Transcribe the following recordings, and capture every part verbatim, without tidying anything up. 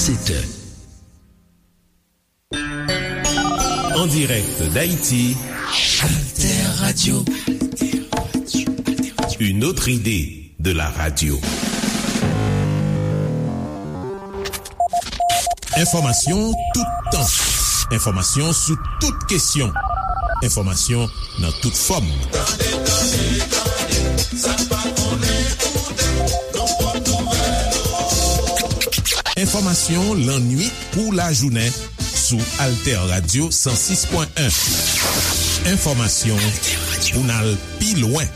sept heures. En direct d'Haïti, Alter Radio. Une autre idée de la radio. Enfòmasyon toutan. Enfòmasyon sou tout kesyon. Enfòmasyon nan tout fòm. Tande, tande, tande, sa n pa konnen koute, nou pran nouvèl. Enfòmasyon lannwit kou lajounen sou Alter Radio san sis pwen en. Enfòmasyon pou n al pi lwen.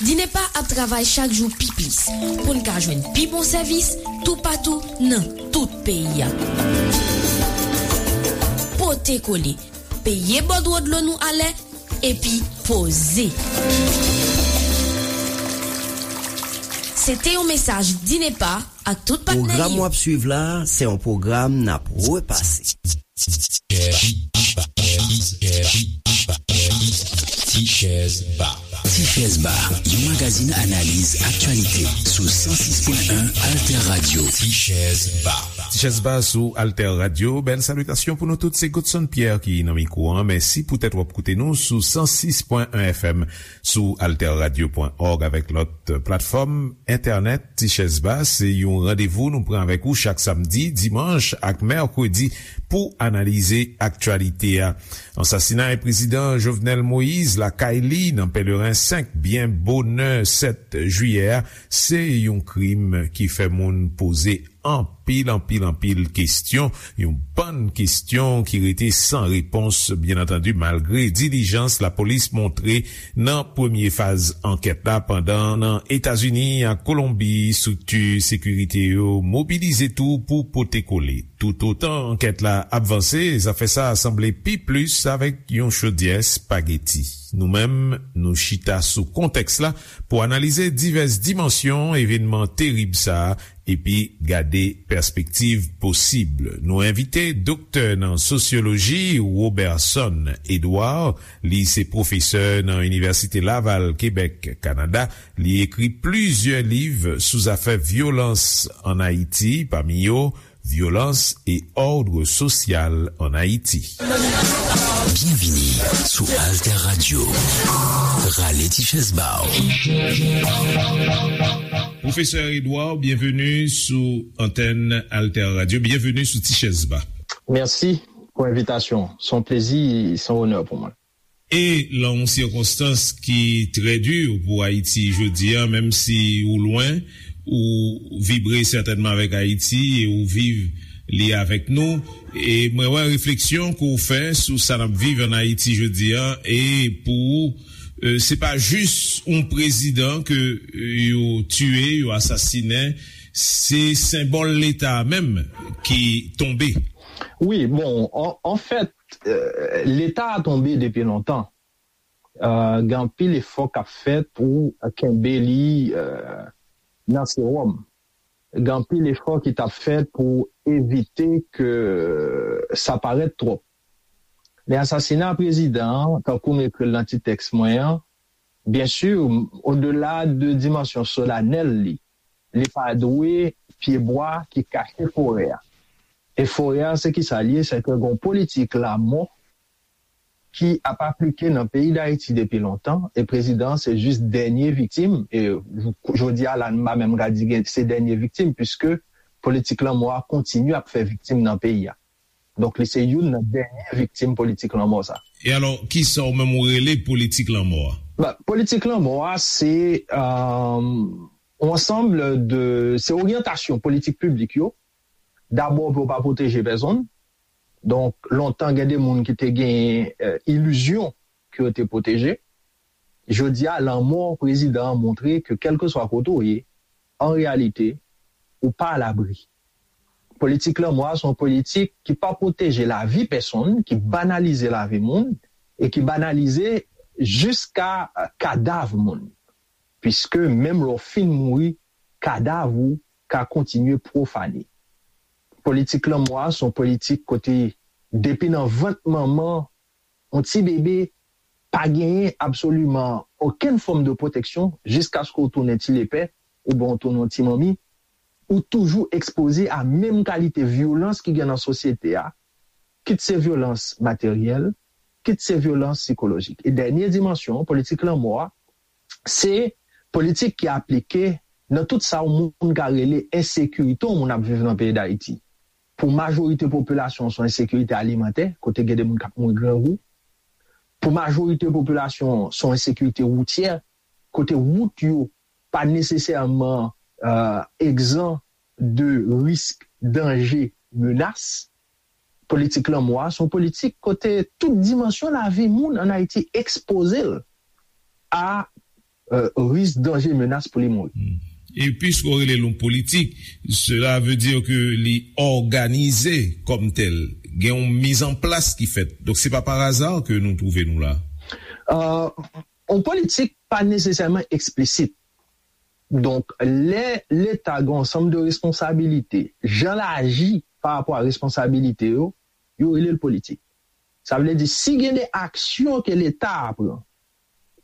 Dinepa ap travay chak jou pi plis pou n ka jwenn pi bon sèvis toupatou nan tout peyi a. Pote kole, peye bòdwo dlo nou alè, epi poze. Se te yon mesaj Dinepa ak tout patnè li yo. Pwogram w ap swiv la, se yon pwogram n ap repase. Tichèz Ba. Tichèz Ba, yon magazin analiz aktyalite sou san sis pwen en Alter Radio. Tichèz Ba. Tichèz Ba sou Alter Radio. Bèl salitasyon pou nou tout. Se Godson Pierre ki nan mikwo an. Mèsi poutèt w ap koute nou sou san sis pwen en F M, sou alter radio pwen org avèk lòt platfòm entènèt. Tichèz Ba, se yon randevou nou pran avèk ou chak samdi, dimanch ak mèkredi pou analize aktyalite a. Ansasinay prezidan Jovenel Moïse lakay li nan Pèleren senk byen bonè sèt jiyè a, se yon krim ki fè moun poze anpil, anpil, anpil kesyon, yon bann kesyon ki rete san repons, byen antandi, malgre dilijans lapolis montre nan premye faz ankèt la, pandan nan Etazini ak Kolonbi, estrikti sekirite yo mobilize tou pou pote kole. Toutotan ankèt la ap vanse, zafè sa a sanble pi plis avèk yon chodyè espageti. Nou menm, nou chita sou kontèks la pou analize divès dimansyon evènman terib sa a epi gade pèspektiv posib. Nou envite doktè nan sosyoloji Roberson Edouard. Li se pwofesè nan Inivèsite Laval, Kebèk, Kanada. Li ekri plizyè liv sou zafè vyolans ann Ayiti, pami yo Violence et ordre social en Haïti. Byenvini sou Alter Radio. Rale ti chèz ba w. Pwofesè Edouard, byenveni sou antèn Alter Radio. Byenveni sou Ti Chèz Ba. Mèsi pou envitasyon. Se yon plezi, se yon onè pou mwen. E lan yon sikonstans ki trè di pou Ayiti jodi a, menm si ou lwen, ou vibre sètènman avèk Ayiti e ou viv li avèk nou. E mwen wè refleksyon ke w fè sou sa n ap viv ann Ayiti jodi a, e pou ou, e, se pa jis yon prezidan ke, e, yo tiye, yo asasinen, se senbòl Leta a menm ki tonbe. Wi, bon, an, anfèt, e, Leta a tonbe depi lontan. E, gen anpil efò k ap fèt pou kenbe li, e, nan sewòm. Gen anpil efò ki t ap fèt pou evite ke sa parèt twòp. Men asasina prezidan an, tankou m ekri l nan ti tèks mwen an, byen si, odela de dimansyon solanèl li, li pa dwe pyebwa ki kache forè a. E forè a, se kisa l ye? Se ke gen yon politik lamò ki ap aplike nan peyi Dayiti depi lontan, e prezidan an se jis dènye viktim, e jodi a la, m pa menm ka di gen, se dènye viktim, piske politik lanmò a kontinye ap fè viktim nan peyi a. Donk, li se youn nan dènye viktim politik lanmò sa. E alò, kisa w menm ou rele politik lanmò a? Ba, politik lanmò a, se, e, yon ansanm de, se oryantasyon politik piblik yo, dabò pou yo pa pwoteje pèsonn. Donk, lontan, gen de moun ki te gen, e, ilizyon ke yo te pwoteje. Jodi a, lanmò prezidan an montre ke kèlkeswa kote w ye, an reyalite, ou pa alabri. Politik lanmò a se yon politik ki pa pwoteje lavi pèsonn, ki banalize lavi moun, e ki banalize jiska, e, kadav moun. Piske menm lè w fin mouri, kadav ou ka kontinye pwofane. Politik lanmò a se yon politik kote depi nan vant manman yon ti bebe pa genyen absoliman okenn fòm de pwoteksyon jiskaske w tounen ti lepè oubyen w tounen yon ti manmi. ou toujou ekspoze a menm kalite vyolans ki gen nan sosyete a, kit se vyolans materyèl, kit se vyolans sikolojik. E dènye dimansyon, politik lanmò a, se politik ki aplike nan tout sa yon moun ka rele ensekirite yon moun ap viv nan peyi Dayiti. Pou majorite popilasyon, se yon ensekirite alimantè, kote gen de moun k ap mouri grangou. Pou majorite popilasyon, se yon ensekirite woutyè, kote wout yo pa nesesèman egzan de risk, danje, menas. Politik lanmò a se yon politik kote tout dimansyon lavi moun ann Ayiti ekspoze l a risk, danje, menas pou li mouri. E piske w rele l yon politik, cela veut dire que li òganize kòm tèl. Gen yon mizanplas ki fèt. Donk, se pa pa aza ke nou twouve nou la. Yon politik pa nesesèman eksplisit. Donk, lè Leta gen yon ansanm de responsabilite, jan l aji pa rapò a responsabilite yo, yo rele l politik. Sa vle di, si gen de aksyon ke Leta a pran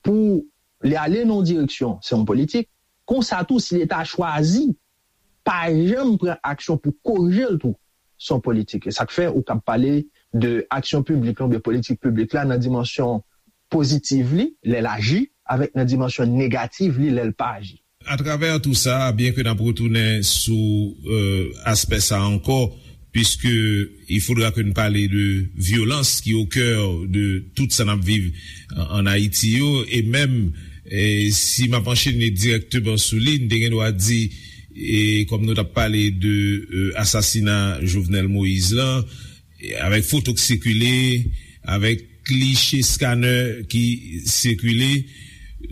pou li ale nan yon direksyon, se yon politik. Konsa tou, si Leta a chwazi pa janm pran aksyon pou korije l tou, se yon politik. E sa k fè ou kab pale de aksyon piblik la oubyen politik piblik la nan dimansyon pozitiv li, lè l aji, avèk nan dimansyon negativ li, lè l pa aji. Atravè tou sa, byen ke n ap retounen sou aspè sa ankò, puisque il faudra que nous parler de violence qui est au cœur de tout sa n ap viv an Ayiti yo, e menm si m ap anchene dirèkteman sou li, n te gen dwa di, e kòm nou t ap pale de asasina Jovenel Moïse lan, avèk foto k sikile, avèk kliche scanner ki sikile,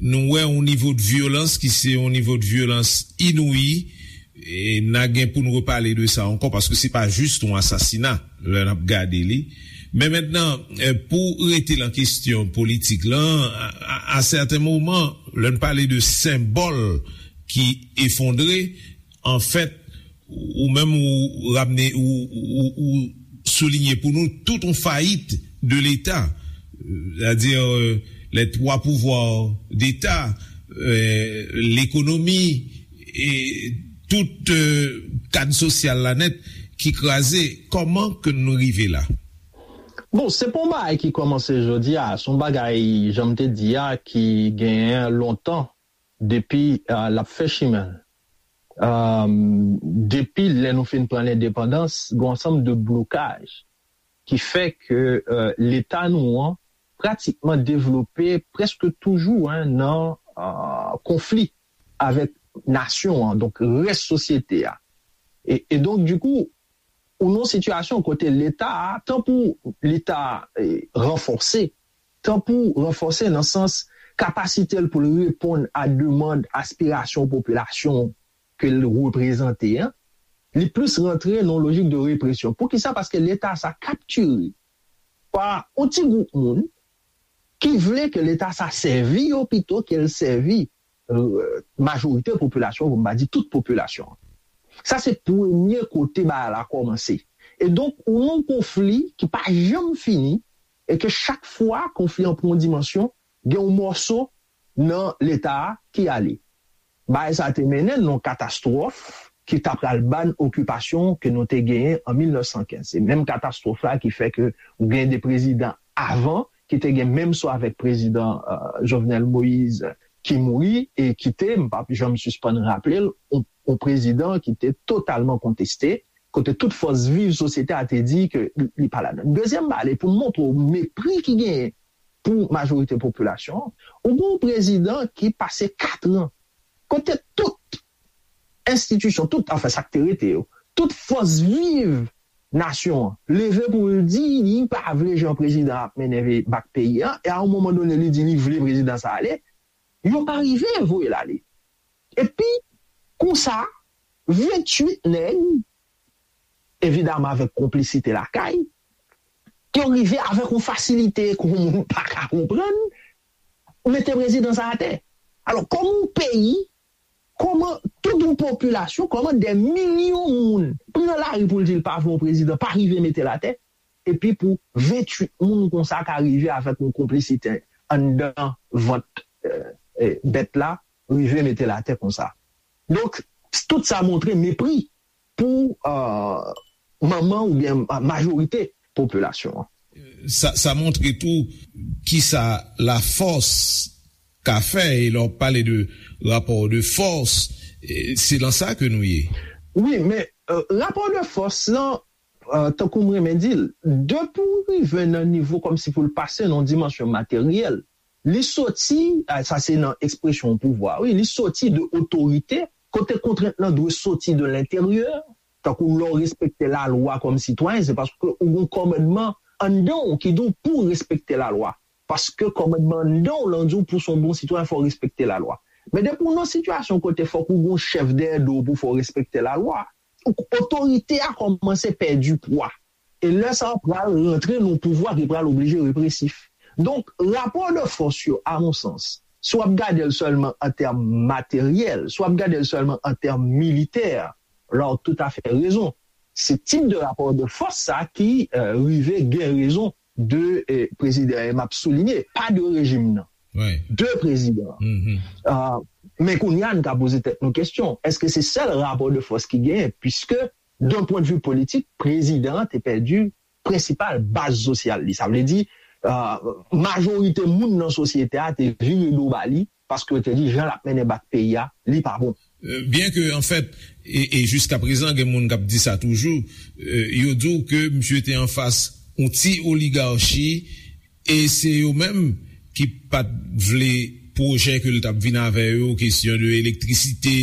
nou wè yon nivo de vyolans ki se yon nivo de vyolans inouyi, e n a gen pou n repale de sa ankò, paske se pa jis yon asasina lè n ap gade li. Men mentnan, pou rete nan kesyon politik lan, a sèten moman, lè n pale de senbòl ki efondre, anfèt, ou menm ou ramne, ou soulinye pou nou tout yon fayit de Leta, sètadi lè twa pouvwa d'Eta, lekonomi, e tout kad sosyal la nèt ki kraze. Kòman ke nou rive la? Bon, se pa yon bagay ki kòmanse jodi a, se yon bagay, jan m te di a, ki genyen lontan depi l ap fè chimen l. Depi lè nou fin pran lendepandans, gen yon ansanm de blokaj ki fè ke Leta nou an pratikman devlope prèske toujou nan konfli avèk nasyon an, donk rès sosyete a. E donk, dikou, ou nan yon sitiyasyon kote Leta a, tan pou li ta ranfòse, tan pou ranfòse nan sans kapasite l pou l reponn a demann, aspirasyon popilasyon ke l reprezante an, li plis rantre nan yon lojik de represyon. Poukisa? Paske Leta sa kaptire pa yon ti gwoup moun ki vle ke Leta sa sèvi yo pito ke l sèvi majorite popilasyon, pou m pa di tout popilasyon an. Sa se premye kote bagay la kòmanse. E donk, ou nan yon konfli ki pa janm fini, e ke chak fwa konfli an pran yon dimansyon, gen yon mòso nan Leta a ki ale. Bagay sa te mennen n nan yon katastwòf ki ta pral ban okipasyon ke nou te genyen an mil nèf san kenz. Se menm katastwòf la ki fè ke ou gen de prezidan avan ki te gen menm sò avèk prezidan Jovenel Moïse ki mouri e ki te, m p ap janm sispann raple l, yon prezidan ki te totalman konteste, kote tout fòs viv sosyete a te di ke li pa ladan. Dezyèm bagay, pou m montre w mepri ki genyen pou majorite popilasyon an, ou gen yon prezidan ki pase kat an kote tout enstitisyon, tout, anfen, sa k te rete yo, tout fòs viv nasyon an leve pou l di li pa vle jan prezidan ap mennen bak peyi a, e a yon moman done li di li vle prezidan sa ale, yo pa rive voye l ale. Epi, konsa, venntuit nèg, evidaman avèk konplisite lakay, yo rive avèk yon fasilite ke yon moun pa ka konprann, mete prezidan sa atè. Alò, kòman yon peyi, kòman tout yon popilasyon, kòman dè milyon moun pran lari pou l di l pa vle yon prezidan, pa rive mete l atè, epi pou venntuit moun konsa ka rive avèk yon konplisite anndan vant bèt la, rive mete l atè konsa. Donk, Tout sa montre mepri pou manman oubyen majorite popilasyon an. Sa montre tou kisa lafòs ka fè, e lè w pale de rapò de fòs, se lan sa ke nou ye. Wi, men rapò de fòs lan, tankou m renmen di l, depi w rive nan nivo kòmsi pou l pase nan dimansyon materyèl, li soti, sa se nan ekspresyon pouvwa, wi, li soti de otorite, kote kontrent lan dwe soti de lenteryè, tankou lè w respekte lalwa kòm sitwayen, se paske ou gen yon kòmandman anndan w ki di w pou w respekte lalwa. Paske kòmandman anndan w lan di w pou w se yon bon sitwayen, fò w respekte lalwa. Men depi w nan sitiyasyon kote fòk ou gen yon chèf dèyè do w pou fè w respekte lalwa, otorite a kòmanse pèdi pwa. E lè sa a pral rantre nan yon pouvwa ki pral oblije represif. Donk, rapò de fòs yo, a mon sans, si w ap gade l sèlman an tèm materyèl, si w ap gade l sèlman an tèm militè, la w toutafè rezon. Se tip de rapò de fòs sa ki rive gen rezon de prezidan, e m ap soulinye, pa de rejim nan, de prezidan an. Men kounye a, n ka poze tèt nou kesyon, èske se sèl rapò de fòs ki genyen? Piske, d'un point de vue politik, prezidan an te pèdi prensipal baz sosyal li. Sa vle di, majorite moun nan sosyete a te vire do ba li, paske yo te di jan l ap mennen bak peyi a, li pa bon. Byen ke, anfèt, e, e jiska prezan, gen moun k ap di sa toujou, yo di w ke misye te anfas yon ti oligachi, e se yo menm ki pa t vle pwojè ke l t ap vin avè yo, kesyon de elektrisite,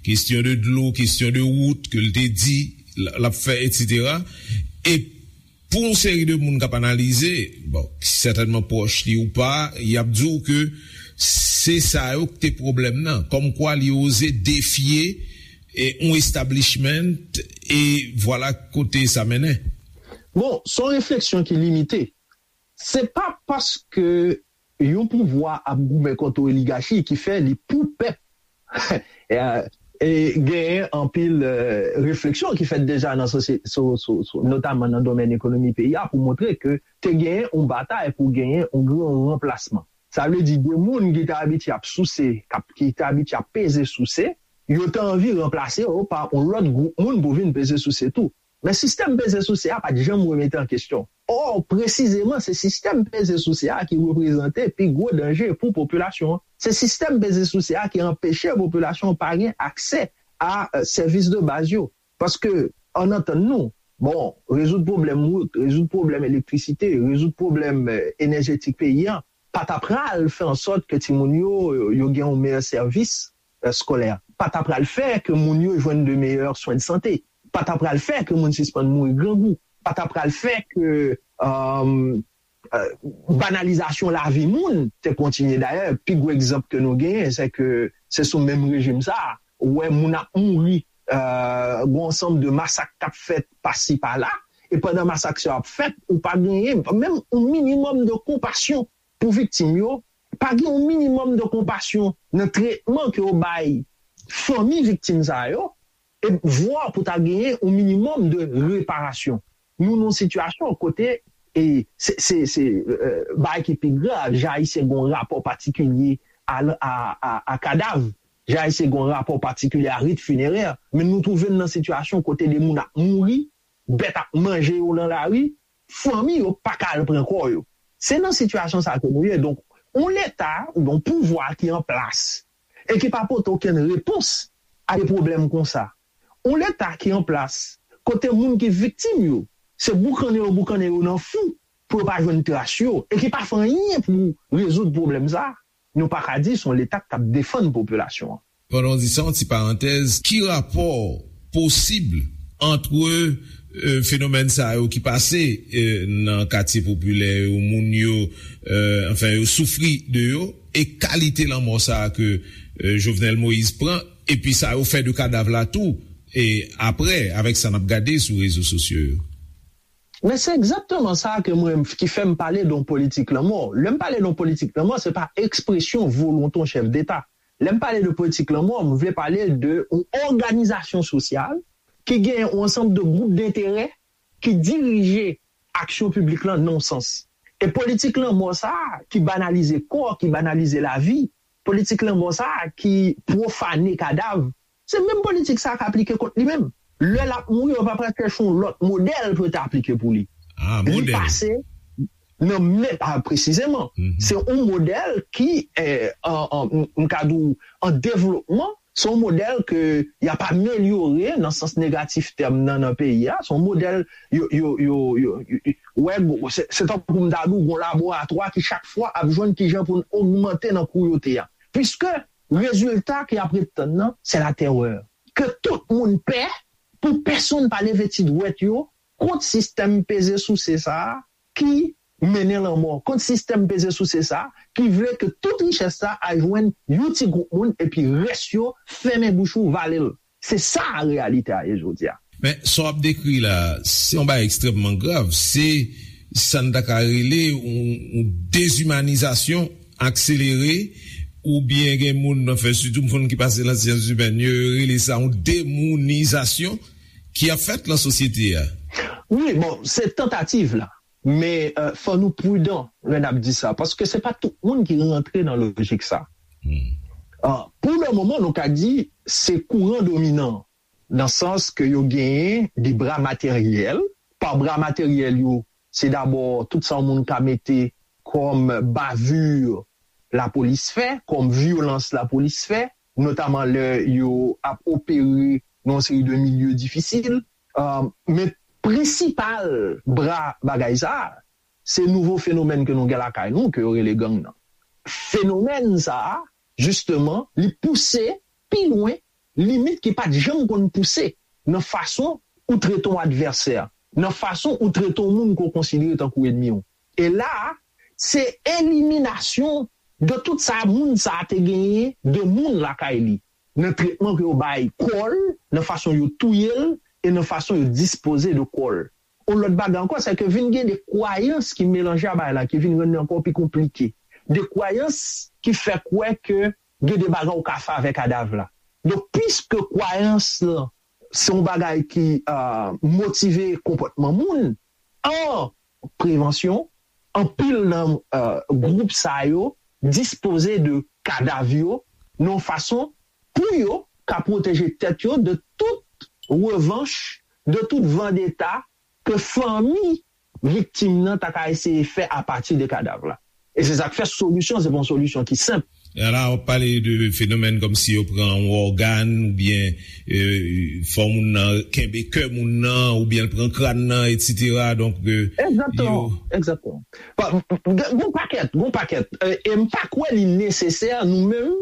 kesyon de dlo, kesyon de wout ke l te di l ap fè, etsetera. E pou yon seri de moun k ap analize, bon, ki sètènman pwòch li ou pa, y ap di w ke se sa yo k te pwoblèm nan. Kòmkwa li oze defye yon establishment, e vwala kote sa mennen. Bon, se yon refleksyon ki limite. Se pa paske yon pouvwa ap goumen kont yon oligachi ki fè li pou pèp. E genyen anpil refleksyon ki fèt deja nan sosyete, notaman nan domèn ekonomi peyi a, pou montre ke te genyen yon batay pou genyen yon gran ranplasman. Sa vle di, de moun ki te abitye ap souse, ki te abitye ap peze souse, yo te anvi ranplase yo pa yon lòt gwoup moun pou vin peze souse tou. Men sistèm peze souse a pa t janm remete an kesyon. Ò, presizeman, se sistèm peze souse a ki reprezante pi gwo danje pou popilasyon an. Se sistèm peze souse a ki anpeche popilasyon an pa gen aksè a sèvis de baz yo. Paske, ann antann nou, bon, rezoud pwoblèm wout, rezoud pwoblèm elektrisite, rezoud pwoblèm enèjetik peyi a, pa ta pral fè ansòt ke timoun yo, yo gen yon meyè sèvis eskolè, pa ta pral fè ke moun yo jwenn de meyè swen de sante, pa ta pral fè ke moun sispann mouri grangou, pa ta pral fè ke banalizasyon lavi moun te kontinye. Dayè, pi gwo egzanp ke nou genyen, se ke se sou menm rejim sa a, ou wè moun ap mouri, gen yon ansanm de masak k ap fèt pasi pala, e pandan masak sa yo ap fèt, ou pa genyen menm yon minimòm de konpasyon pou viktim yo, pa gen yon minimòm de konpasyon nan tretman ke yo bay fanmi viktim sa yo, e vwa pou ta genyen yon minimòm de reparasyon. Nou nan yon sitiyasyon kote, e se, se, se bagay ki pi grav, jan Ayisyen gen yon rapò patikilye a, a, a, a kadav, jan Ayisyen gen yon rapò patikilye a rit finerè, men nou twouve n nan sitiyasyon kote de moun ap mouri, bèt ap manje yo nan lari, fanmi yo pa ka al pran kò yo. Se nan sitiyasyon sa ke nou ye. Donk, yon Leta oubyen yon pouvwa ki an plas e ki pa pote okenn repons a de pwoblèm konsa. Yon Leta ki an plas kote moun ki viktim yo, se boukannen yo boukannen yo nan fou pou yo pa jwenn tras yo e ki pa fè anyen pou rezoud pwoblèm sa, nou pa ka di se yon Leta k ap defann popilasyon an. Pandan w di sa, yon ti parantèz, ki rapò posib ant fenomèn sa yo ki pase nan katye popilè yo, moun yo, anfen, yo soufri de yo, e kalite lanmò sa a ke Jovenel Moïse pran, epi sa yo fè de kadav la tou, e apre, avèk sa n ap gade sou rezo sosyo yo? Men se egzakteman sa ke mwen, ki fè m pale de yon politik lanmò. Lè m pale de yon politik lanmò, se pa ekspresyon volonte yon chèf deta. Lè m pale de politik lanmò, m vle pale de yon òganizasyon sosyal ki gen yon ansanm de gwoup denterè ki dirije aksyon piblik lan nan yon sans. E politik lanmò sa a ki banalize kò, ki banalize lavi, politik lanmò sa a ki pwofane kadav, Se menm politik sa a k aplike kont li menm. Lè l ap mouri, yo pa pral chèche yon lòt modèl pou yo te aplike pou li. Li pase nan men, a, presizeman. Se yon modèl ki, eh, an, an, m, m ka di w, an devlopman, se yon modèl ke y ap amelyore nan sans negatif tèm nan, nan peyi a. Se yon modèl yo, yo, yo, yo, yo, yo, wè, se, se tankou m ta di w, yon laboratwa ki chak fwa ap jwenn kijan pou n ogmante nan kouyote a. Piske rezilta ke y ap ret tann nan, se latèrè. Ke tout moun pè, pou pèsonn pa leve ti dwèt yo kont sistèm peze souse sa a ki mennen lanmò, kont sistèm peze souse sa a ki vle ke tout richès sa a al jwenn yon ti gwoup moun epi rès yo fèmen bouch ou, vale l. Se sa reyalite a ye jodi a. Men, sa w ap dekri la, se yon bagay ekstrèmman grav. Se sa n ta ka rele yon, yon dezimanizasyon akselere, oubyen gen moun, anfen, sitou moun ki pase nan syans imèn, yo rele sa yon demounizasyon ki ap fèt nan sosyete a. Wi, bon, se tantativ la. Men, euh, fò nou pridan lè n ap di sa, paske se pa tout moun ki rantre nan lojik sa. Ah, pou le moman, nou ka di se kouran dominan, nan sans ke yo genyen de bra materyèl. Pa bra materyèl yo, se dabò tout sa yon moun ka mete kòm bavure lapolis fè, kòm vyolans lapolis fè, notaman lè yo ap opere nan yon seri de milye difisil. Ah, men prensipal bra bagay sa a, se nouvo fenomèn ke nou gen lakay nou, ke yo rele gang nan. Fenomèn sa a, jisteman, li pouse pi lwen limit ki pa t janm konn pouse nan fason ou trete yon advèsè, nan fason ou trete yon moun ke w konsidere tankou ènmi w. E la a, se eliminasyon de tout sa moun sa a te genyen de moun lakay li, nan tretman ke yo bay kò l, nan fason yo touye l, e nan fason yo dispoze de kò l. Yon lòt bagay ankò, se ke vin gen de kwayans ki melanje a bagay la, ki vin rann li ankò pi konplike. De kwayans ki fè kwè ke gen de bagay ou ka fè avèk kadav la. Donk, piske kwayans lan se yon bagay ki, euh, motive konpòtman moun, an prevansyon, anpil nan, euh, gwoup sa yo dispoze de kadav yo nan yon fason pou yo ka pwoteje tèt yo de tout revanch, de tout vandeta ke fanmi viktim nan ta ka eseye fè apati de kadav la. E se sa k fè solisyon, se pa yon solisyon ki senp. E la, w ap pale de fenomèn kòmsi yo pran yon ògàn, oubyen, euh, fè moun nan kenbe kè moun nan, oubyen l pran kràn nan, etsetera. Donk, euh, egzakteman, yo egzakteman. Pa, gen, gen pakèt, gen pakèt. Euh, e m pa kwè li nesesè nou menm,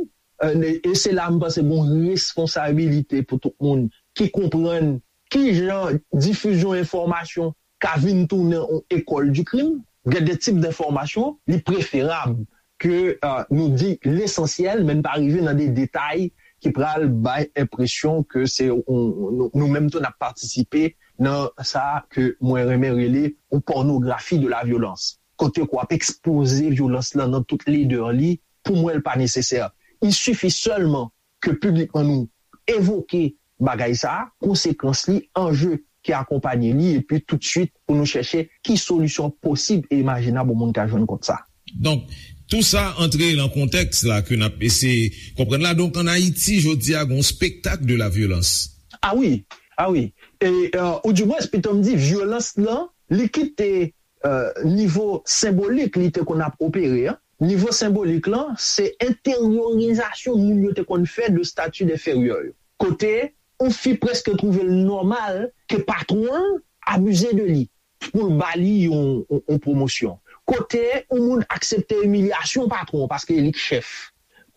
euh, e se la m panse gen responsabilite pou tout moun ki konprann ki jan difizyon enfòmasyon ka vin tounen yon école du crime, gen de tip de enfòmasyon, li preferab ke, euh, nou di lesansyèl, men n pa rive nan de detay ki pral bay enpresyon ke se yon, nou, nou menm tou n ap patisipe nan sa ke mwen renmen rele yon pònografi de la vyolans. Kote ke w ap ekspoze vyolans lan nan tout ledè li, pou mwen, l pa nesesè. Il suffit seulement ke piblikman nou evoke bagay sa a, konsekans li, anje ki akonpanye li, epi toutswit pou nou chèche ki solisyon posib e imajinab yon moun ka jwenn kont sa. Donk, tou sa antre nan kontèks la ke n ap eseye konprann la. Donk, ann Ayiti, jodi a, gen yon spektak de la vyolans. A wi, a wi. E, euh, ou dimwens, pito m di, vyolans lan, li kite, euh, nivo senbolik li te konn ap opere an. Nivo senbolik lan, se enteryorizasyon moun yo te konn fè de stati enferyè yo. Kote yon fi prèske twouve l nòmal ke patwon l abize de li pou l ba li yon, yon, yon pwomosyon. Kote yon moun aksepte imilyasyon patwon paske li k chèf.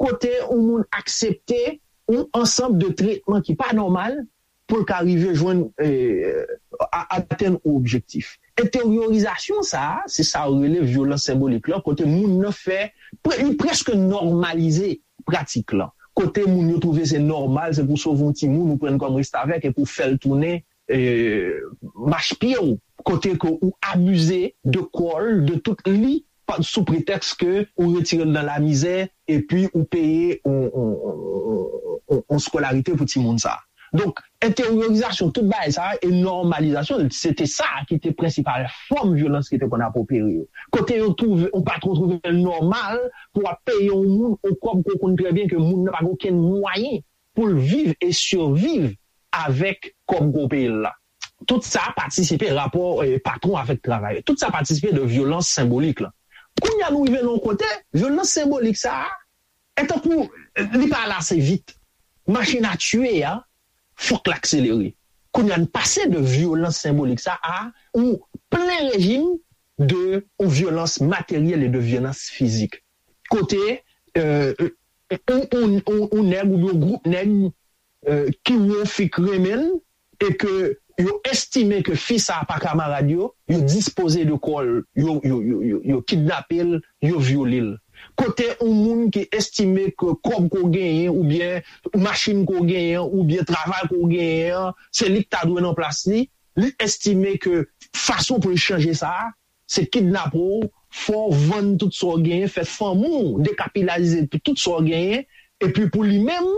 Kote yon moun aksepte yon ansanm de tretman ki pa nòmal pou l ka rive jwenn, eh, a-, atenn yon objektif. Enteryorizasyon sa a, se sa yo rele vyolans senbolik lan, kote moun nan fè, pre-, li prèske nòmalize pratik lan. Kote moun yo twouve se nòmal, se pou sove yon timoun, ou pran l kòm restavèk epi w fè l tounen, eh, machpye w. Kote ke ou abize de kò l, de tout li, pa, sou pretèks ke ou retire l nan lamizè, epi ou peye yon, yon, yon, yon, yon skolarite pou timoun sa a. Donk, enteryorizasyon tout bagay sa a e nòmalizasyon l, se te sa ki te prensipal fòm vyolans ki te konn ap opere yo. Kote yo twouve, yon patwon twouve l nòmal pou w ap peye yon moun yon kòb ke w konn trè byen ke moun nan pa gen okenn mwayen pou l viv e siviv avèk kòb gwo peyi l la. Tout sa patisipe rapò eh, patwon avèk travayè. Tout sa patisipe de vyolans senbolik la. Kounye a nou rive nan yon kote, vyolans senbolik sa a, e tankou li pa ale ase vit. Machin a tiye a, fòk l akselere. Kounye a n pase de vyolans senbolik sa a, ou plen rejim de ou vyolans materyèl e de vyolans fizik. Kote euh, ou, ou, ou, ou nèg oubyen yon gwoup nèg euh, ki wè yon fi k renmen l e ke yo estime ke fi sa a pa kamarad yo, yo dispoze de kò l, yo, yo, yo, yo, yo kidnape l, yo vyole l. Kote yon moun ki estime ke kòb ke w genyen oubyen machin ke w genyen oubyen travay ke w genyen an, se li k ta dwe nan plas li, li estime ke fason pou l chanje sa a, se kidnape w, fè w vann tout sa w genyen, fè fanmi w dekapilaze pou tout sa w genyen, epi pou li menm,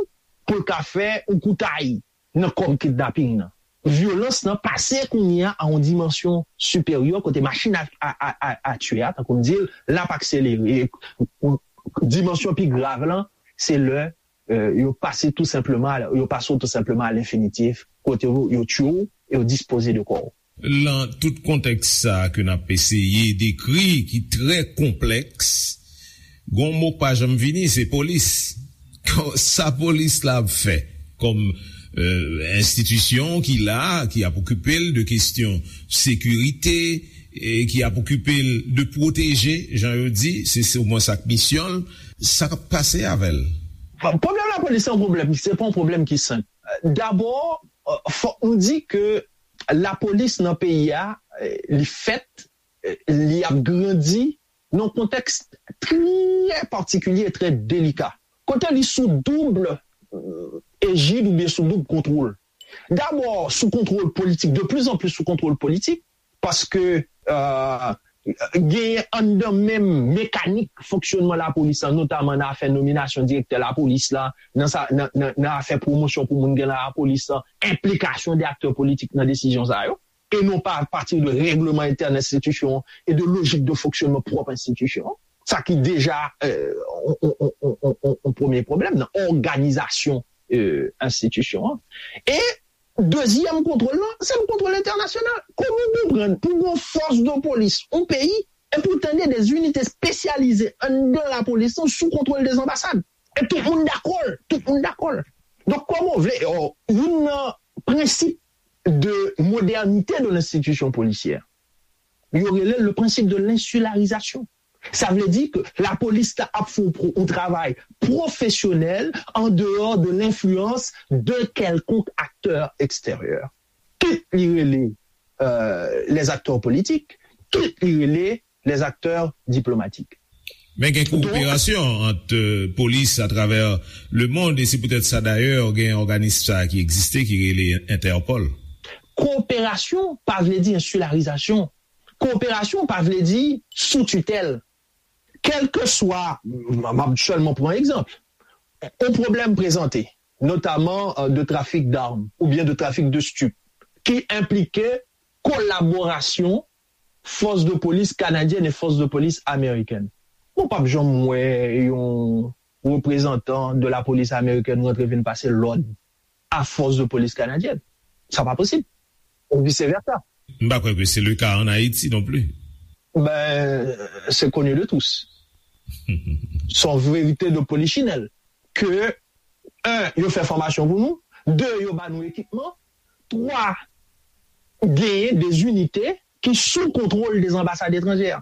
pou l ka fè yon koutay nan kòb kidnaping nan. Vyolans lan pase kounye a a yon dimansyon siperyè kote machin a, a, a, a, a tiye a, tankou m di l, l ap akselere. E, dimansyon pi grav lan, se lè euh, yo pase tou senpleman, yo pase w tou senpleman a lenfinitif, kote yo, yo tiye w e yo dispoze de kò w. Lan tout kontèks sa ke n ap eseye dekri, ki trè konplèks, gon mo k pa janm vini, se polis. Sa polis la ap fè kòm euh, enstitisyon ki la, ki ap okipe l de kesyon sekirite, e ki ap okipe l de pwoteje, jan yo di, se se omwen sa k misyon l, sa k ap pase avè l? Pwoblèm lapolis se yon pwoblèm, se pa yon pwoblèm ki senp. Dabò, euh, fòk nou di ke lapolis nan peyi a, euh, li fèt, euh, li ap grandi nan yon kontèks trè patikilye e trè delika. Kote li sou doub euh, ejid oubyen sou doub kontwòl. Dabò, sou kontwòl politik, de plus en plus sou kontwòl politik, paske euh, genyen anndan menm mekanik fonksyònman lapolis la, notaman nan afè nominasyon direktè lapolis la, nan, sa, nan, nan, nan afè pwomosyon pou moun gen nan lapolis la, enplikasyon de aktè politik nan desizyon sa yo, e non pa apati de règleman entèn enstitisyon an e de lojik de fonksyònman pwòp enstitisyon an. Sa ki deja euh, on, on, on, on, on, on premye pwoblèm nan òganizasyon euh, enstitisyon an. E dezyèm kontwòl lan, se yon kontwòl entènasyonal. Kòman w konprann pou yon fòs de polis, yon peyi, e pou tande de zinite espesyalize anndan lapolis lan sou kontwòl de zanbasad? E tout moun dakò l, tout moun dakò l. Donk, kòman w vle, oh, youn nan prensip de modernité de l'institution policière, yo rele le principe de l'insularisation. Sa vle di ke lapolis la ap fè yon travay pwofesyonèl an dehors de l'influence de quelconque acteur extérieur. Kit li rele euh, les acteurs politiques, kit li rele les acteurs diplomatiques. Men gen kowoperasyon ant euh, polis atravè lemonn, e se poutèt sa dayè gen òganis sa ki egziste ki rele Interpol. Kowoperasyon pa vle di ensilarizasyon. Kowoperasyon pa vle di sou titèl. Kèlkeswa, m ap sèlman pran egzanp, yon pwoblèm prezante, notaman euh, de trafik d'armes oubyen de trafik de stup, ki enplike kolaborasyon fòs de polis kanadyèn e fòs de polis amerikèn. Mwen p ap janm wè yon reprezantan de lapolis amerikèn rantre vin pase lòd a fòs de polis kanadyèn. Sa pa posib. Ou vise vèsa. M pa kwè ke se le ka ann Ayiti non pli. Ben, c'est connu de tous. Son verite de polichinelle. Ke, un, yo fè fòmasyon pou nou, de, yo ba nou ekipman, twa, genyen de zinite ki sou kontwòl de zanbasad etranjè.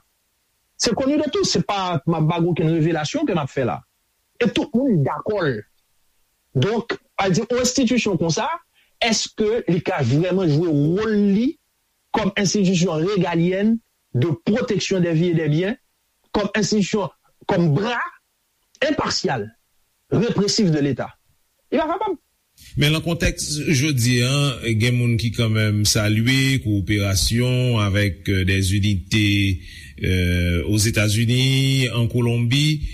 Se koni de tout, se pa m ap ba w okenn revelasyon ke m ap fè la. E tout moun dakò l. Donk, a di yon enstitisyon konsa, èske li ka vrèman jwe wòl li kòm enstitisyon regalyèn de pwoteksyon dè vi e dè byen, kòm enstitisyon, kòm bra enpasyal, represif de Leta? Li pa kapab. Men nan kontèks jodi a, gen moun ki kanmenm salye kowoperasyon avèk euh, des unités euh, Ozetazini, an Kolonbi.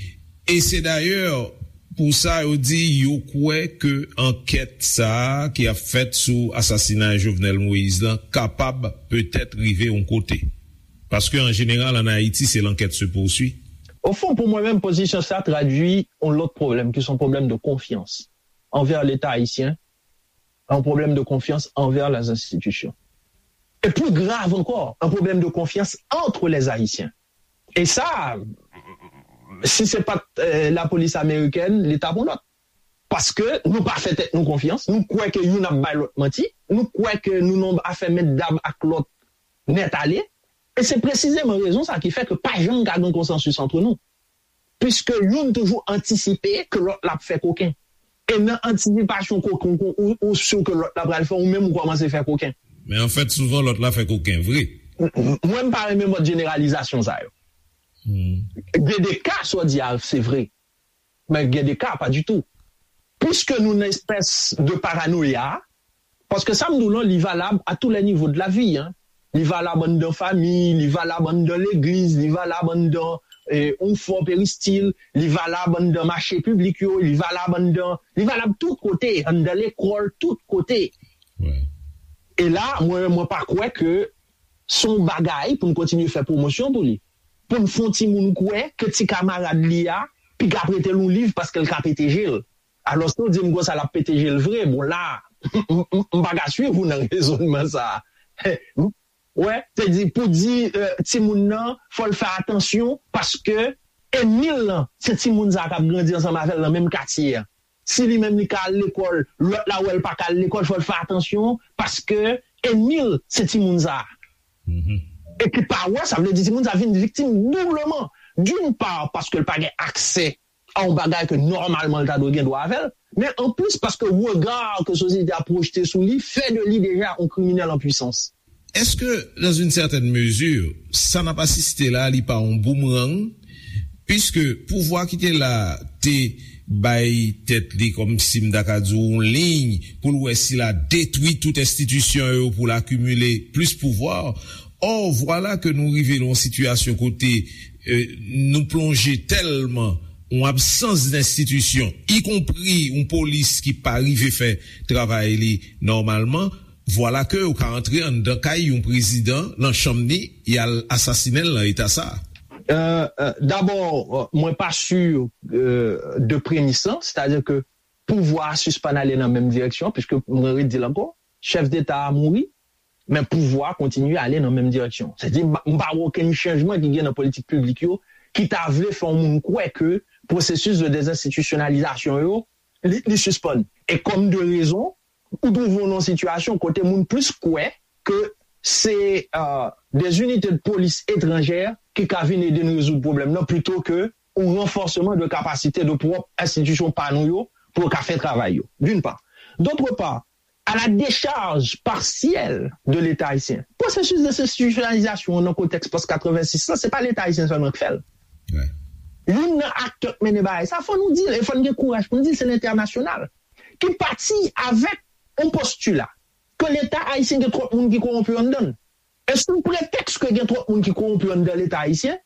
E se dayè pou sa yo di yo kwè ke ankèt sa a ki ap fèt sou asasinay Jovenel Moïse lan kapab petèt rive yon kote. Paske an jeneral, an Ayiti, se l'enquête se poursuit. Ofon, pou mwen menm, pozisyon sa tradui yon lòt pwoblèm, ki se yon pwoblèm de konfyans. envers l'État haïtien, un problème de confiance envers les institutions. Et plus grave encore, un problème de confiance entre les Haïtiens. Et ça, si c'est pas euh, la police américaine, l'État pour l'autre. Paske nou pa fè tèt nou konfyans, nou kwè ke youn ap bay lòt manti, nou kwè ke nou nan afè mèt dam ak lòt nèt ale, e se presizeman rezon sa ki fè ke pa janm ka gen konsansis antre nou. Piske youn toujou antisipe ke lòt la ap fè koken. E nan antisipasyon koken ou, ou, ou si ke lòt la pral fè, ou menm ou kòmanse fè koken. Men anfèt, souvan lòt la fè koken vre. M- m- Mwen, m pa renmen mòd jeneralizasyon sa yo. Gen de ka, sa w di a, se vre. Men gen de ka, pa ditou. Piske nou nan espès de paranoya, paske sa m di w lan, li valab à tous les niveaux de la vie, hein. Li valab anndan fanmi, li valab anndan legliz, li valab anndan eh, yon fò peristil, li valab anndan mache piblik yo, li valab anndan, li valab tout kote, anndan lekòl, tout kote. E la, mwen, mwen pa kwè ke se yon bagay pou n kontinye fè pwomosyon pou li. Pou n fè yon timoun kwè ke ti kamarad li a piga prete l yon liv paske l ka pete je l. Alòske w di m konsa l ap pete je l vre. Bon, la, m pa ka swiv ou nan rezònman sa a. Wè, se di, pou di eh, timoun nan, fò l fè atansyon paske enmi l lan, se timoun sa a k ap grandi ansanm avè l nan menm katye a. Si li menm li ka al lekòl, lòt la wè l pa ka al lekòl, fò l fè atansyon, paske enmi l se timoun sa a. E ki pa wè, sa vle di timoun sa a vin viktim doubleman. D'une part, paske l pa gen aksè a yon bagay ke nòmalman l ta dwe gen dwa avè l, men anplis paske rega ke sosyete a pwojte sou li fè de li deja yon kriminèl an pwisans. Èske, dans une certaine mesure, sa n ap asiste la, li pa yon boomerang? Piske pouvwa ki te la te bay tèt li kòmsi m ta ka di w yon liy pou l wè si l a detwi tout enstitisyon yo pou l akimile plis pouvwa. Or, vwala ke nou rive nan yon sitiyasyon kote eh, nou plonje tèlman yon absans d enstitisyon, ikonpri yon polis ki pa rive fè travay li nòmalman, vwala ke yo ka antre anndan kay yon prezidan, nan chanm ni, y al asasinen l nan eta sa a. Euh, euh, D'abord, euh, mwen pa sur euh, de premis lan, c'est-à-dire que pouvwa a sispann ale nan menm direksyon, piske mwen redi l ankò, chèf deta a mouri, men pouvwa a kontinye ale nan menm direksyon. Se di, m pa wè okenn chanjman ki gen nan politik piblik yo ki ta vle fè yon moun kwè ke pwosesis de dezenstitisyonalizasyon yo, li, li sispann. E kòm de rezon, ou twouve w nan yon sitiyasyon kote moun plis kwè ke se euh, des unités de police étrangères ki ka vin ede n rezoud pwoblèm nan plito ke yon ranfòseman de kapasite de pwòp enstitisyon pa nou yo pou yo ka fè travay yo, d'une part. D'autre part, à la décharge partielle de l'État haïtien. Pwosesis dezenstitisyonalizasyon an nan kontèks pòs katrevensis lan, se pa Leta ayisyen sèlman k fè l. Youn nan aktè k mennen bagay sa, fò nou di l, e fò n gen kouraj pou n di l, se lentènasyonal. Ki pati avèk yon postila ke Leta ayisyen gen twòp moun ki kowonpi anndan l. E sou pretèks ke gen twòp moun ki kowonpi anndan Leta ayisyen,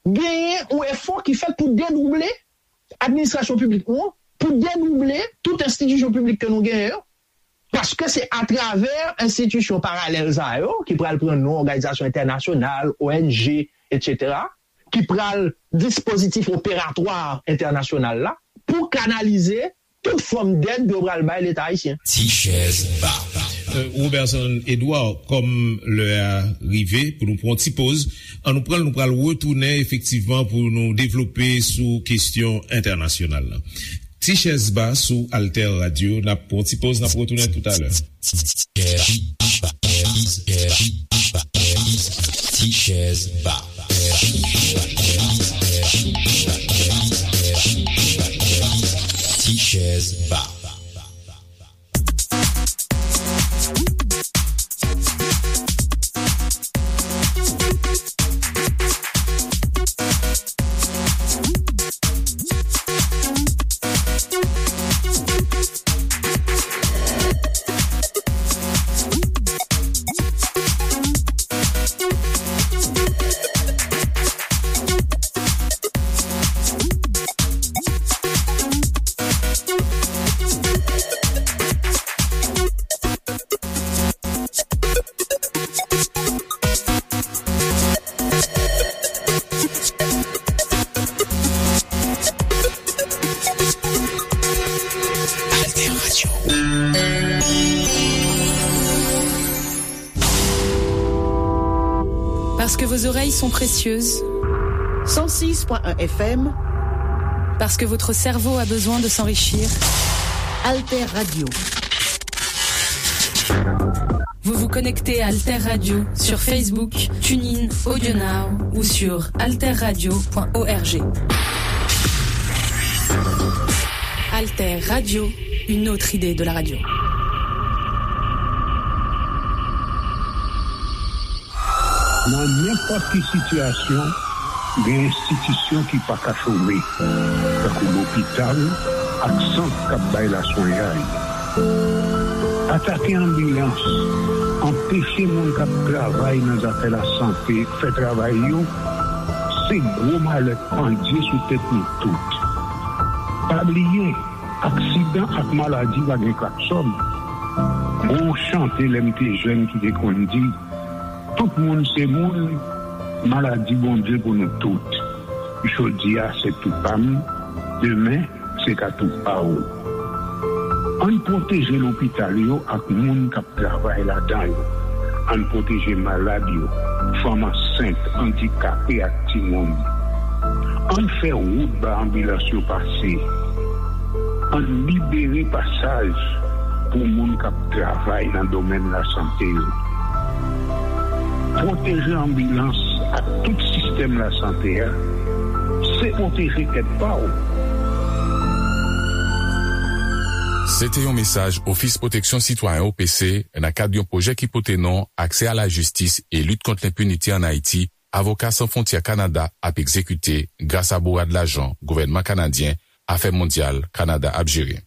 genyen yon efò ki fèt pou dedouble administrasyon piblik nou an, pou dedouble tout enstitisyon piblik ke nou genyen yo, paske se atravè enstitisyon paralèl sa yo, ki pral pran non òganizasyon entènasyonal, O N G, etsetera, ki pral dispozitif operatwa entènasyonal la, pou kanalize tout fòm dèd yo pral bay Leta ayisyen. Ti chèz ba. Euh, Robertson Edouard, kòm lè a rive pou nou pran yon ti poz, ann nou pran l, nou pral retounen efektivman pou nou devlope sou kesyon entènasyonal la. Ti chèz ba sou Alter Radio, n ap pran yon ti poz, n ap retounen toutalè. Ti chèz ba. Ti chèz ba. Parce que vos oreilles sont précieuses. Cent six point un F M. Parce que votre cerveau a besoin de s'enrichir. Alter Radio. Vous vous connectez à Alter Radio sur Facebook, TuneIn, AudioNow ou sur alterradio point org. Alter Radio, une autre idée de la radio. Nan nenpòt ki sitiyasyon, gen enstitisyon ki pa ka chome, tankou lopital ak sant k ap bay laswenyay. Atake anbilans, anpeche moun k ap travay nan zafè lasante fè travay yo, se gwo malè k pandye sou tèt nou tout. Pa bliye, aksidan ak maladi pa gen klaksòn. Gon chante lè m te jèn ki te konn di, tout moun se moun, maladi Bondye pou nou tout. Jodi a se tou pa m, demen se ka tou pa w. Ann pwoteje lopital yo ak moun k ap travay ladan yo. Ann pwoteje malad yo, fanm ansent, andikape ak timoun. Ann fè wout ba anbilans yo pase. Ann libere pasaj pou moun k ap travay nan domèn lasante yo. Pwoteje anbilans ak tout sistèm lasante a, se pwoteje tèt pa w. Se te yon mesaj Ofis Pwoteksyon Sitwayen, O P C, nan kad yon pwojè ki pote non Aksè a la jistis e lit kont lenpinite ann Ayiti, Avoka San Fwontyè Kanada ap egzekite gras a bourad lajan gouvènman kanadyen Afè Mondyal Kanada ap jere.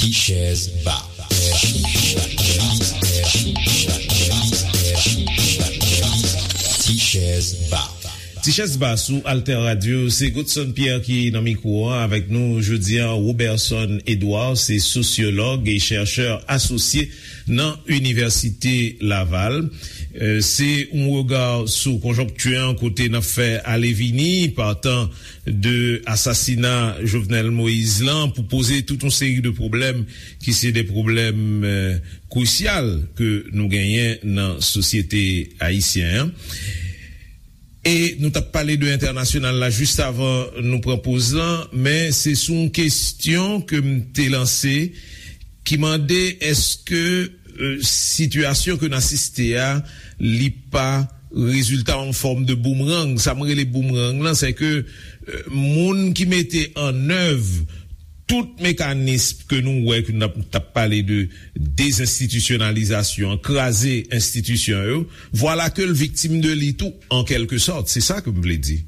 Ti chèz ba. Ti chèz ba. Ti chèz ba sou Alter Radio, se Godson Pierre ki nan mikwo a. Avèk nou jodi a, Roberson Edouard, se sosyològ e chèchè asosye nan Inivèsite Laval. Euh, se yon rega sou konjonkti an kote n ap fè ale vini, partan de asasina Jovenel Moïse lan, pou poze tout yon seri de pwoblèm ki se de pwoblèm, euh, krisyal ke nou genyen nan sosyete ayisyen an. E nou t ap pale de entènasyonal la jis avan nou pran poz lan, men se sou yon kesyon ke m te lanse ki mande èske, euh, sitiyasyon ke n asiste a, li pa rezilta yon fòm de boumerang. Sa m rele boumerang lan, se ke, euh, moun ki mete an èv tout mekanis ke nou wè ke n ap, t ap pale de dezenstitisyonalizasyon, kraze enstitisyon yo, vwala ke l viktim de li tou, an kèlke sòt. Se sa ke m vle di.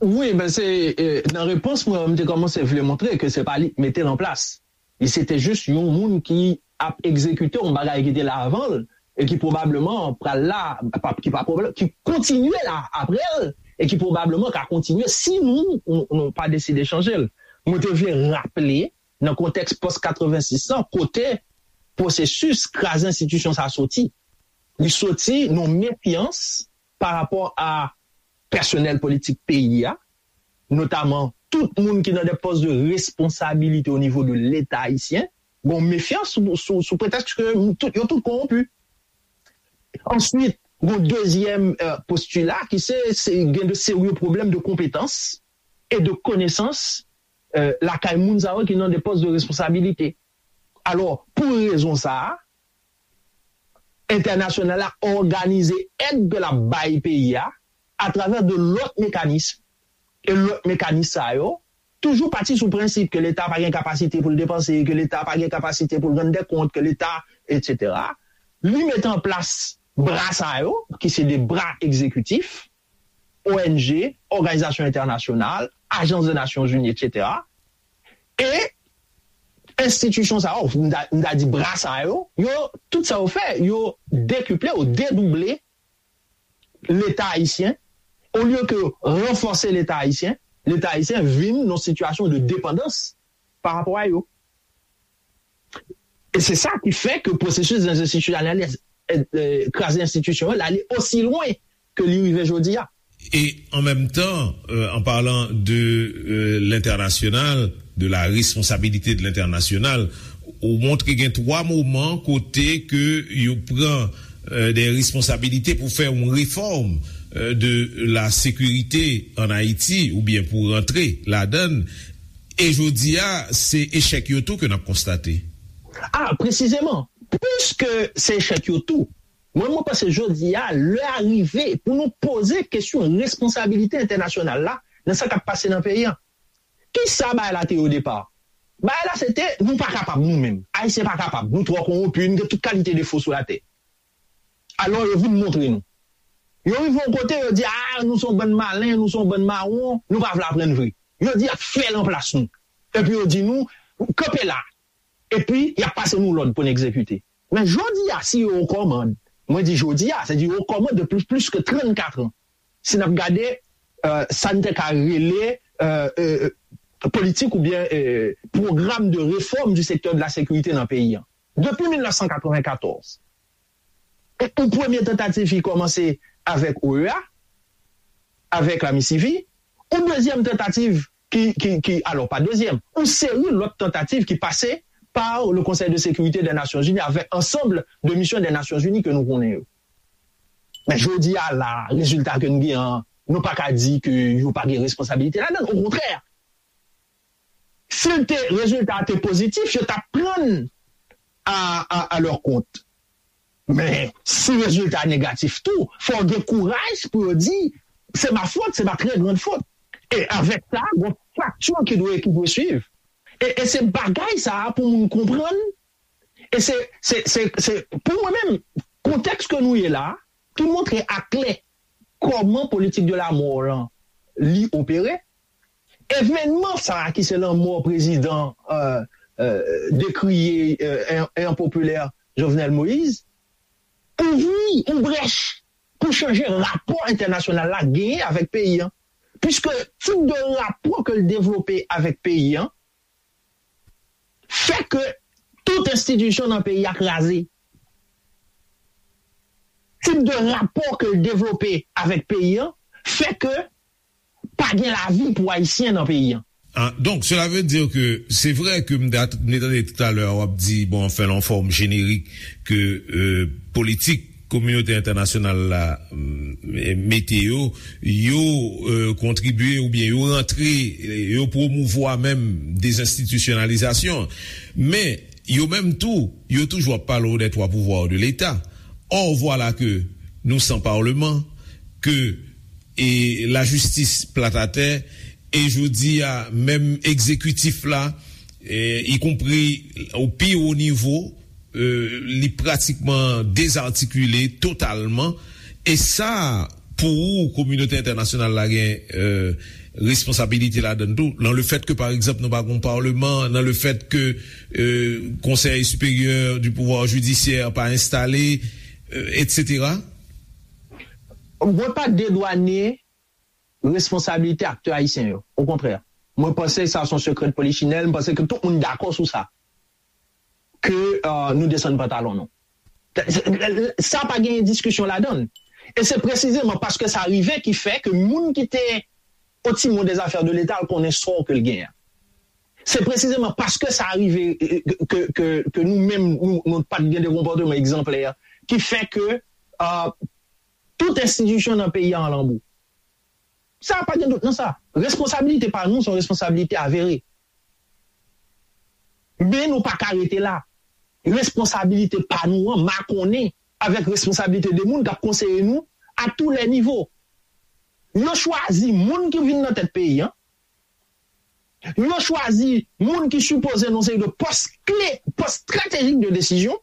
Wi, ben se, eh, nan repons mwen, mwen te kòmanse vle montre ke se pa li ki mete l an plas. Li se te jis yon moun ki ap egzekite yon bagay ki te la avan l e ki pwobableman pral la, pa, ki pa pwoblèm, ki kontinye la apre l e ki pwobableman ka kontinye si nou, nou, nou pa deside chanje l. Mwen te vle raple, nan kontèks pòs katrevensis lan, kote pwosesis kraze enstitisyon sa soti. Li soti nan mefyans pa rapò a pèsonèl politik peyi a, notaman tout moun ki nan de pòs de responsabilite o nivo de Leta ayisyen, gon mefyans sou, sou, sou pretèks ke tout, yo tout kowonpi. Answit, gon dezyèm, eh, postila ki se, se gen de serye pwoblèm de konpetans e de konesans, eh, lakay moun sa yo ki nan de pòs de responsabilite. Alò, pou rezon sa a, entènasyonal la òganize èd ke l ap bay peyi a atravè de lòt mekanis. E lòt mekanis sa yo toujou pati sou prensip ke Leta pa gen kapasite pou l depanse, ke Leta pa gen kapasite pou l rann dè kont, ke Leta, etsetera. Li mete an plas bra sa yo, ki se de bra egzekitif, O N G, òganizasyon entènasyonal, ajans de Nasyonzini, etsetera. E enstitisyon sa yo, m ta, m ta di bra sa yo, yo, tout sa yo fè, yo dekiple ou dedouble Leta ayisyen. Olye ke ranfòse Leta ayisyen, Leta ayisyen vin nan sitiyasyon de depandans pa rapò a yo. E se sa ki fè ke pwosesis dezenstitisyonaliz-, eh, eh, kraze enstitisyon yo, l ale osi lwen ke li rive jodi a. Et en même temps, euh, en parlant de, euh, l'international, de la responsabilité de l'international, Ou montre gen twa moman kote ke yo pran euh, des responsabilités pour faire une réforme euh, de la sécurité en Haïti ou bien pour rentrer là-dedans. E jodi a, se echèk yo tou ke n ap konstate. Ah, presizeman, piske se echèk yo tou, mwen, mwen panse jodi a, lè a rive pou nou poze kesyon responsabilite entènasyonal la nan sa k ap pase nan peyi a. Kisa bagay la te ye o depa? Bagay la se te, nou pa kapab nou menm. Ayisyen pa kapab. Nou twò konwonpi, nou gen tout kalite defo sou latè. Alò, yo vin montre nou. Yo rive yon kote, yo di, ah, nou se yon bann malen, nou se yon bann mawon, nou pa vle aprann vre. Yo di, y ap fè l anplas nou. Epi yo di nou, kanpe la. Epi, y ap pase nou lòd pou n egzekite. Men jodi a, si yo okòmand, mwen di jodi a, se di yo okòmand de plus, plus que trannkat an. Si n ap gade euh, sa n te ka rele euh, euh, politik oubyen euh, programme de réforme du secteur de la sécurité nan peyi an. Depi mil nèf san katreven katòz, yon premye tantativ ki kòmanse avèk O E A, avèk la MICIVI, yon dezyèm tantativ ki, ki, ki, alò pa dezyèm, yon seri lòt tantativ ki pase par le Conseil de sécurité des Nations Unies avec ensemble de missions des Nations Unies ke nou konnen yo. Men jodi a la, rezilta ke n gen an, nou pa ka di ke yo pa gen responsabilite ladan l. Okontrè, si l te, rezilta a te pozitif, yo t ap pran n a, a, a lè kont. Men, si rezilta a negatif tou, fò w gen kouraj pou yo di, c'est ma faute, c'est ma très grande faute. E avèk sa, gon fakti ki dwe, ki dwe swiv. E, e se bagay sa a pou moun konprann. E se, se, se, se, pou mwen menm, kontèks ke nou ye la, ki montre aklè kòman politik de la mò lan li opere. Evènman sa a ki se lanmò prezidan euh, euh, dekriye euh, e enpopilè Jovenel Moïse, ouvri yon brèch pou chanje rapò entènasyonal la genyen avèk peyi an. Piske tip de rapò ke l devlope avèk peyi an fè ke tout enstitisyon nan peyi a kraze. Tip de rapò ke l devlope avèk peyi an fè ke pa gen lavi pou Ayisyen nan peyi an. Ah, donc, cela veut dire que c'est vrai que m te tande tout à l'heure w ap di, bon, anfen, yon fòm jenerik ke euh, politik kominote entènasyonal la mm, mete yo, yo euh, kontribye oubyen yo rantre, yo pwomouvwa menm dezenstitisyonalizasyon. Men, yo menm tou, yo toujou ap pale w des trois pouvoirs de l'État. Or, voilà que nous sans parlement, que e lajistis plat atè, e jodi a, menm egzekitif la, e, ikonpri o pi wo nivo, e, li pratikman dezatikile totalman. E sa, pou ou, kominote entènasyonal la gen e, responsabilite ladan l tou, nan le fèt ke, pa egzanp, nou pa gen yon palman, nan le fèt ke e, Conseil supérieur du pouvoir judiciaire pa enstale, e, etsetera. Mwen pa dedwane responsabilite aktè ayisyen yo. Okontrè. Mwen panse sa se yon sekrè de polichinèl, mwen panse ke tout moun dakò sou sa. Ke euh, nou desann pantalon nou. Sa pa gen diskisyon ladan l. E se presizeman paske sa rive ki fè ke moun ki te au timon des affaires de l'État al konnen sò ke l genyen. Se presizeman paske sa rive ke, ke, ke nou menm nou, nou pa t gen de konpòteman egzanplè ki fè ke uh, tout enstitisyon nan peyi a an lanbou. Sa pa gen dout nan sa. Responsabilite pa nou se yon responsabilite avere. Men nou pa ka rete la. Responsabilite pa nou an makonnen avèk responsabilite de moun k ap konseye nou a tou lè nivo. Yo chwazi moun ki vin nan tèt peyi an. Yo chwazi moun ki sipoze nan seri de pòs kle, pòs estratejik de desizyon.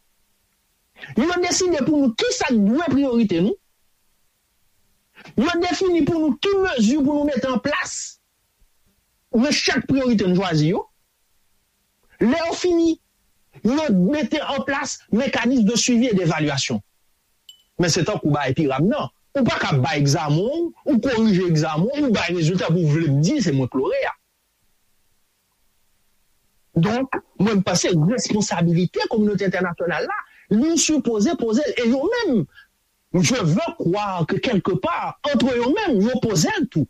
Yo deside pou nou kisa k dwe priyorite nou. Yo defini pou nou ki mezi pou nou mete an plas nan chak priyorite n chwazi yo. Lè yo fini, yo mete an plas mekanis de swivi e devalyasyon. Men se tankou bay piram nan. Ou pa ka bay egzamen w, ou korije egzamen w, ou bay rezilta pou w vle m di se mwen k lore a. Donk, mwen m panse responsabilite kominote entènasyonal la, li sipoze poze l. E yo menm, je veux croire que quelque part, entre yo menm, yo poze l tou.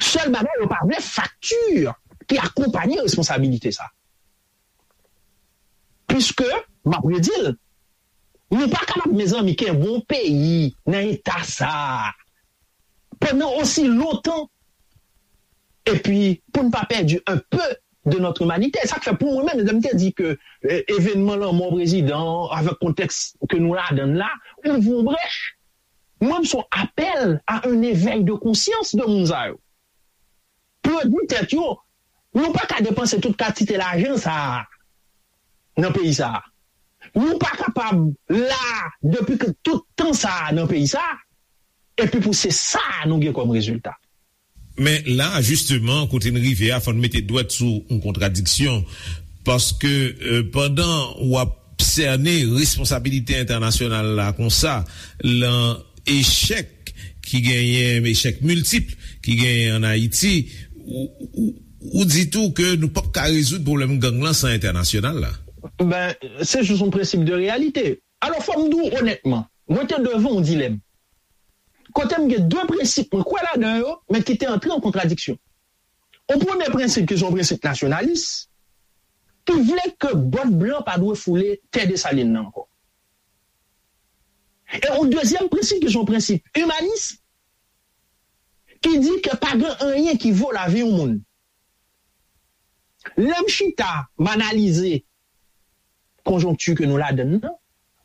Sèl bagay, yo pa vle fakti ki akonpanye responsabilite sa. Piske, m ap redi l, nou pa kapab, mezanmi, kenbe yon peyi nan eta sa a pandan osi lontan, epi pou n pa pèdi un peu de notre humanité. Sa k fè, pou mwen menm, lè m te di ke, eh, evènman lanmò prezidan an, avèk kontèks ke nou ladan l la, ouvri yon brèch. Mwen, m se yon apèl à un éveil de conscience de moun sa yo. Pwodui tèt yo. Nou pa ka depanse tout kantite lajan sa a nan peyi sa a. Nou pa kapab la depi ke tout tan sa a nan peyi sa a, epi pou se sa a nou gen kòm rezilta. Men la, jisteman, kote n rive a, fò n mete dwèt sou yon kontradiksyon. Paske, euh, pandan w ap sène responsabilite entènasyonal la konsa, lan echèk ki genyen, echèk miltip ki genyen ann Ayiti, ou, ou, ou di tou ke nou p ap ka rezoud pwoblèm gang lan san entènasyonal la. Ben, se jis yon prensip de reyalite. Alò, fò m di w onètman, mwen te devan yon dilèm. Kote m gen de prensip, mwen kwè ladan yo, men ki te antre an kontradiksyon. Yon premye prensip ki se yon prensip nasyonalis, ki vle ke bòt blan pa dwe foule tè Desalin nan ankò. E yon dezyèm prensip ki se yon prensip imanis, ki di ke pa gen anyen ki vo lavi yon moun. Lè m chita, m analize konjonkti ke nou ladan nan,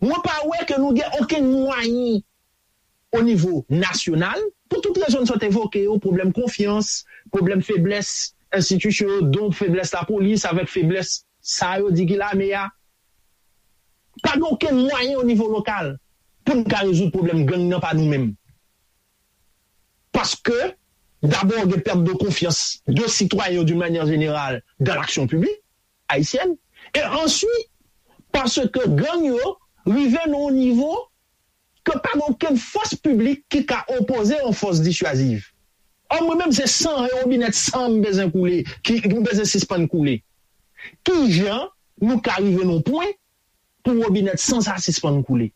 mwen pa wè ke nou gen okenn mwayen o nivo nasyonal, pou tout rezon n sot evoke yo, pwoblèm konfyans, pwoblèm feblès enstitisyon yo, donk feblès lapolis avèk feblès sa yo di ki lame a. Pa gen okenn mwayen o nivo lokal pou n ka rezoud pwoblèm gang nan pa nou menm. Paske, dabò, gen pèt de konfyans de sitwayen yo d'une manière générale dans l'action publique haïtienne, e answit, paske gang yo rive nan yon nivo ke pa gen okenn fòs piblik ki ka opoze yon fòs disyaziv. Ò, mwen menm, se san, e wobinèt san m bezwen koule, ki, m bezwen sispann koule. Kijan nou ka rive nan yon pwen pou wobinèt san sa sispann koule?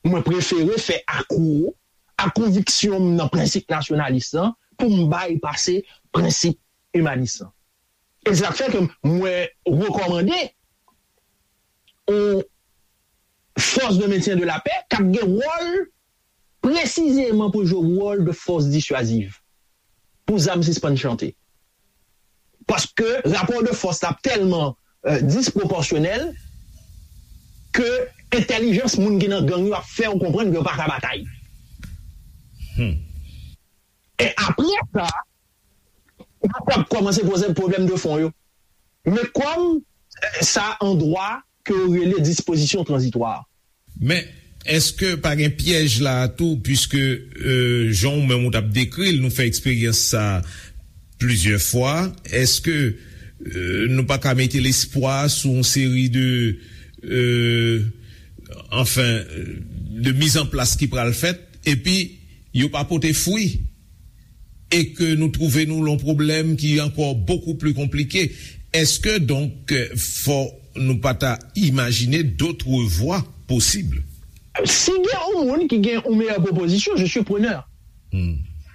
Mwen prefere fè akwo a konviksyon m nan prensip nasyonalis lan pou m baypase prensip imanis lan. E se sa k fè ke mwen rekòmande yon force de maintien de la paix k ap gen wòl presizeman pou jwe wòl de fòs disyaziv pou zam sispann chante. Paske rapò de fòs la ap tèlman, euh, dispwopòsyonèl ke entèlijans moun ki nan gang yo ap fè w konprann ke yo pa ka batay. E apre sa, nou pral kòmanse poze pwoblèm de fon yo. Men kòm, eh, sa an dwa ke yo rele dispozisyon tranzitwa. Men, èske pa gen pyèj la a tou, piske, euh, jan w menm ou t ap dekri l, nou fè eksperyans sa plizyè fwa, èske, euh, nou pa ka mete lespwa sou yon seri de, euh, anfen, de mizanplas ki pral fèt, epi yo pa pote fwi, e ke nou twouve nou lan yon pwoblèm ki ankò bokou pli konplike? Èske donk, fò nou pa ta imajine d'autres voies possibles? Si gen yon moun ki gen yon meyè pwopozisyon, je suis preneur.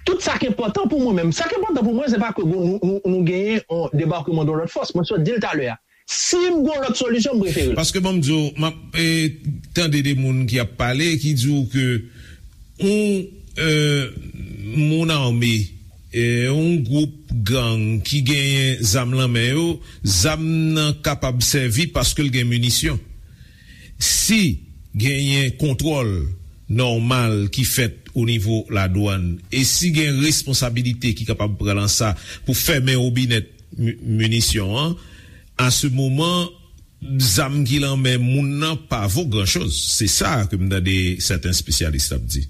Tout sa k enpòtan pou mwen menm, sa k enpòtan pou mwen, se pa ke nou, nou, nou genyen yon debakman de lòt fòs. Mwen sot di l talè a. Si m gen yon lòt solisyon, m prefere l. Paske ban m di w, m ap, eh, tande de moun ki ap pale, ki di w ke yon, eh, moun ame, eh, yon gwoup gang ki genyen zam lan men yo, zam nan kapab sèvi paske l gen minisyon. Si genyen kontwòl nòmal ki fèt o nivo ladwàn, e si gen responsabilite ki kapab pran lan sa pou fèmen wobinèt mi-, minisyon an, a se moman, zam ki lan men moun nan pa vo gran choz. Se sa ke m tande sèten espesyalis ap di.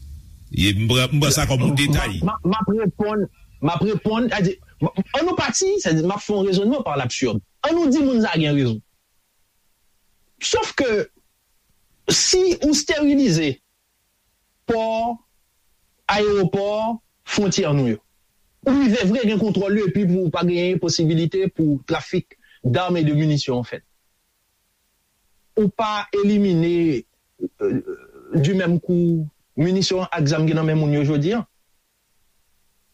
E m pran, m pran sa kòm yon detay. M, m, m ap reponn, m ap reponn, sètadi, m, ann nou pati, sètadi, m ap fè yon rezònman par l'absurde. Ann nou di moun sa gen rezon. Sof ke si ou sterilize pò, ayewopò, fwontyè nou yo, ou rive vre gen kontwòl yo epi pou pa genyen posibilite pou trafik dam e de minisyon an fèt. Ou pa elimine, euh, du même coup, minisyon ak zam ki nan men moun yo jodi an.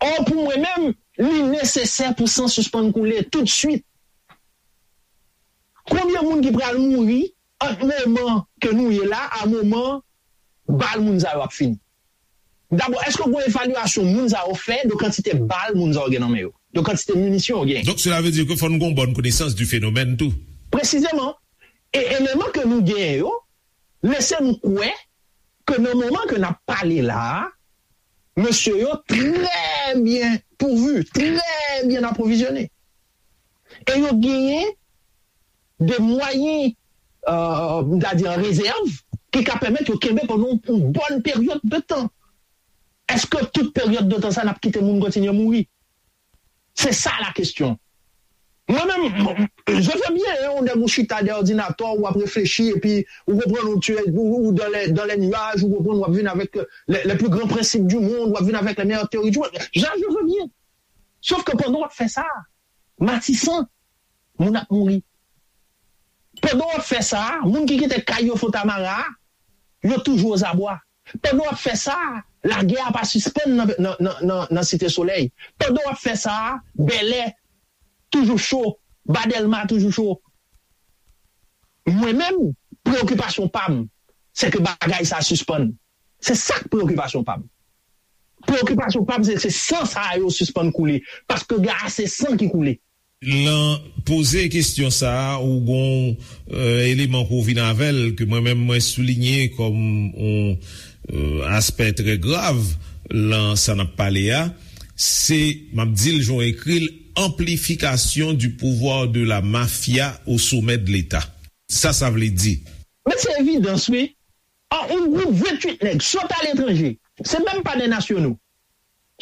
Ò, pou mwen menm, li nesesè pou san sispann koule toutswit. Konbyen de moun ki pral mouri ant moman ke nou ye la a moman bal moun sa yo ap fini? Dabò, èske gen evalyasyon moun sa yo fè de kantite bal moun sa yo gen nan men yo, de kantite minisyon yo gen? Donc cela veut dire que fò nou gon bòn konesans du phénomène tou. Presizeman. E eleman ke nou genyen yo lese nou kwè ke nan moman ke n ap pale la a, mesye yo trè byen pouvu, trè byen apwovizyone. E yo genyen de mwayen, euh, m ta di an rezèv, ki ka pèmèt yo kenbe pandan yon bòn peryòd de tan. Èske tout peryòd de tan sa n ap kite moun kontinye mouri? Se sa la kesyon. Mwen menm, je veux bien, hein, ou nèg ou chita dèyè òdinatè, w ap reflechi, epi ou konprann ou, tu es, ou, ou dans les, dans les nuages, ou konprann w ap vin avèk les, les plus grands principes du monde, w ap vin avèk les meilleures théories du monde. Ja, je veux bien. Sòf ke pandan w ap fè sa, Matisan, moun ap mouri. Pandan w ap fè sa, moun ki kite kay yo Fontamara, yo toujou ozabwa. Pandan w ap fè sa, lagè a pa sispann nan, nan, nan, nan, nan Site Solèy. Pandan w ap fè sa, Bèlè toujou cho, Ba Dèlma toujou cho. Mwen menm, preyokipasyon pa m, se ke bagay sa sispann. Se sa k preyokipasyon pa m. Preyokipasyon pa m, se, se san sa yo sispann koule. Paske gen ase san ki koule. Lan poze kesyon sa a, ou gon, euh, eleman pou w vin avè l, ke mwen menm mwen soulinye kòm yon, euh, aspè trè grav lan sa n ap pale a, se, m ap di l jan w ekri l, amplifikasyon du pouvoir de la mafia au sommet de l'État. Sa sa vle di? Men se evidans, wi. An, yon gwoup venntuit nèg sot aletranje, se menm pa de nasyonal,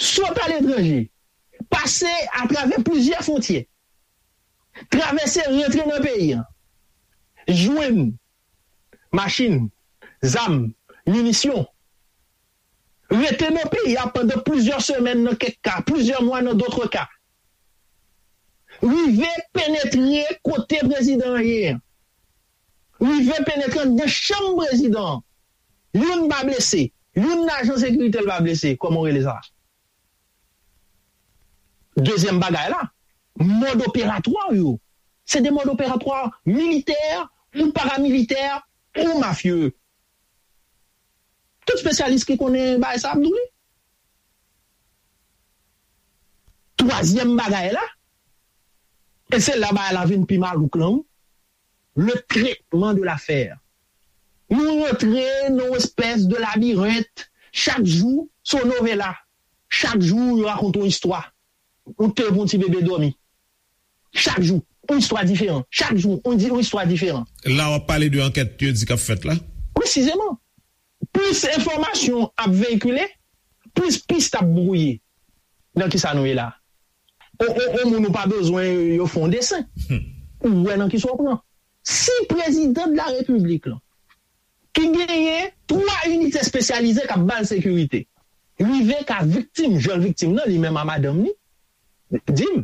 sot aletranje, pase atravè plizyè fwontyè, travèse, rantre nan peyi a, jwenn machin, zam, minisyon, rete nan peyi a pandan plizyè semèn nan kèk ka, plizyè mwa nan dòt ka, rive penetre kote prezidan an ye a, rive penetre anndan chanm prezidan an. Youn pa blese, youn nan ajan sekirite l pa blese, kòman w rele sa? Dezyèm bagay la, mòd operatwa yo, se de mòd operatwa militè ou paramilitè ou mafye. Tout espesyalis ki konnen bagay sa ap di w li. Twazyèm bagay la, e se la bagay la vin pi malouk lan, wi, le traitement de l'affaire. Nou rantre nan yon espès de labirent. Chak jou, se yon novela. Chak jou, yo rakonte yon istwa. Ou te pou yon ti bebe dòmi. Chak jou, yon istwa diferan. Chak jou, yon di-, yon istwa diferan. La, w ap pale de ankèt yo di k ap fèt la? Presizeman. Plis enfòmasyon ap veyikile, plis pis ap bwouye nan kisa nou ye la. O, o, o moun ou pa bezwen yo fè yon desen. Ou wè nan kisa w pran. Si prezidan de la repiblik lan, ki genyen twa inite espesyalize k ap ba l sekirite, rive ka viktim, jan l viktim nan, li menm a madanm li, di m,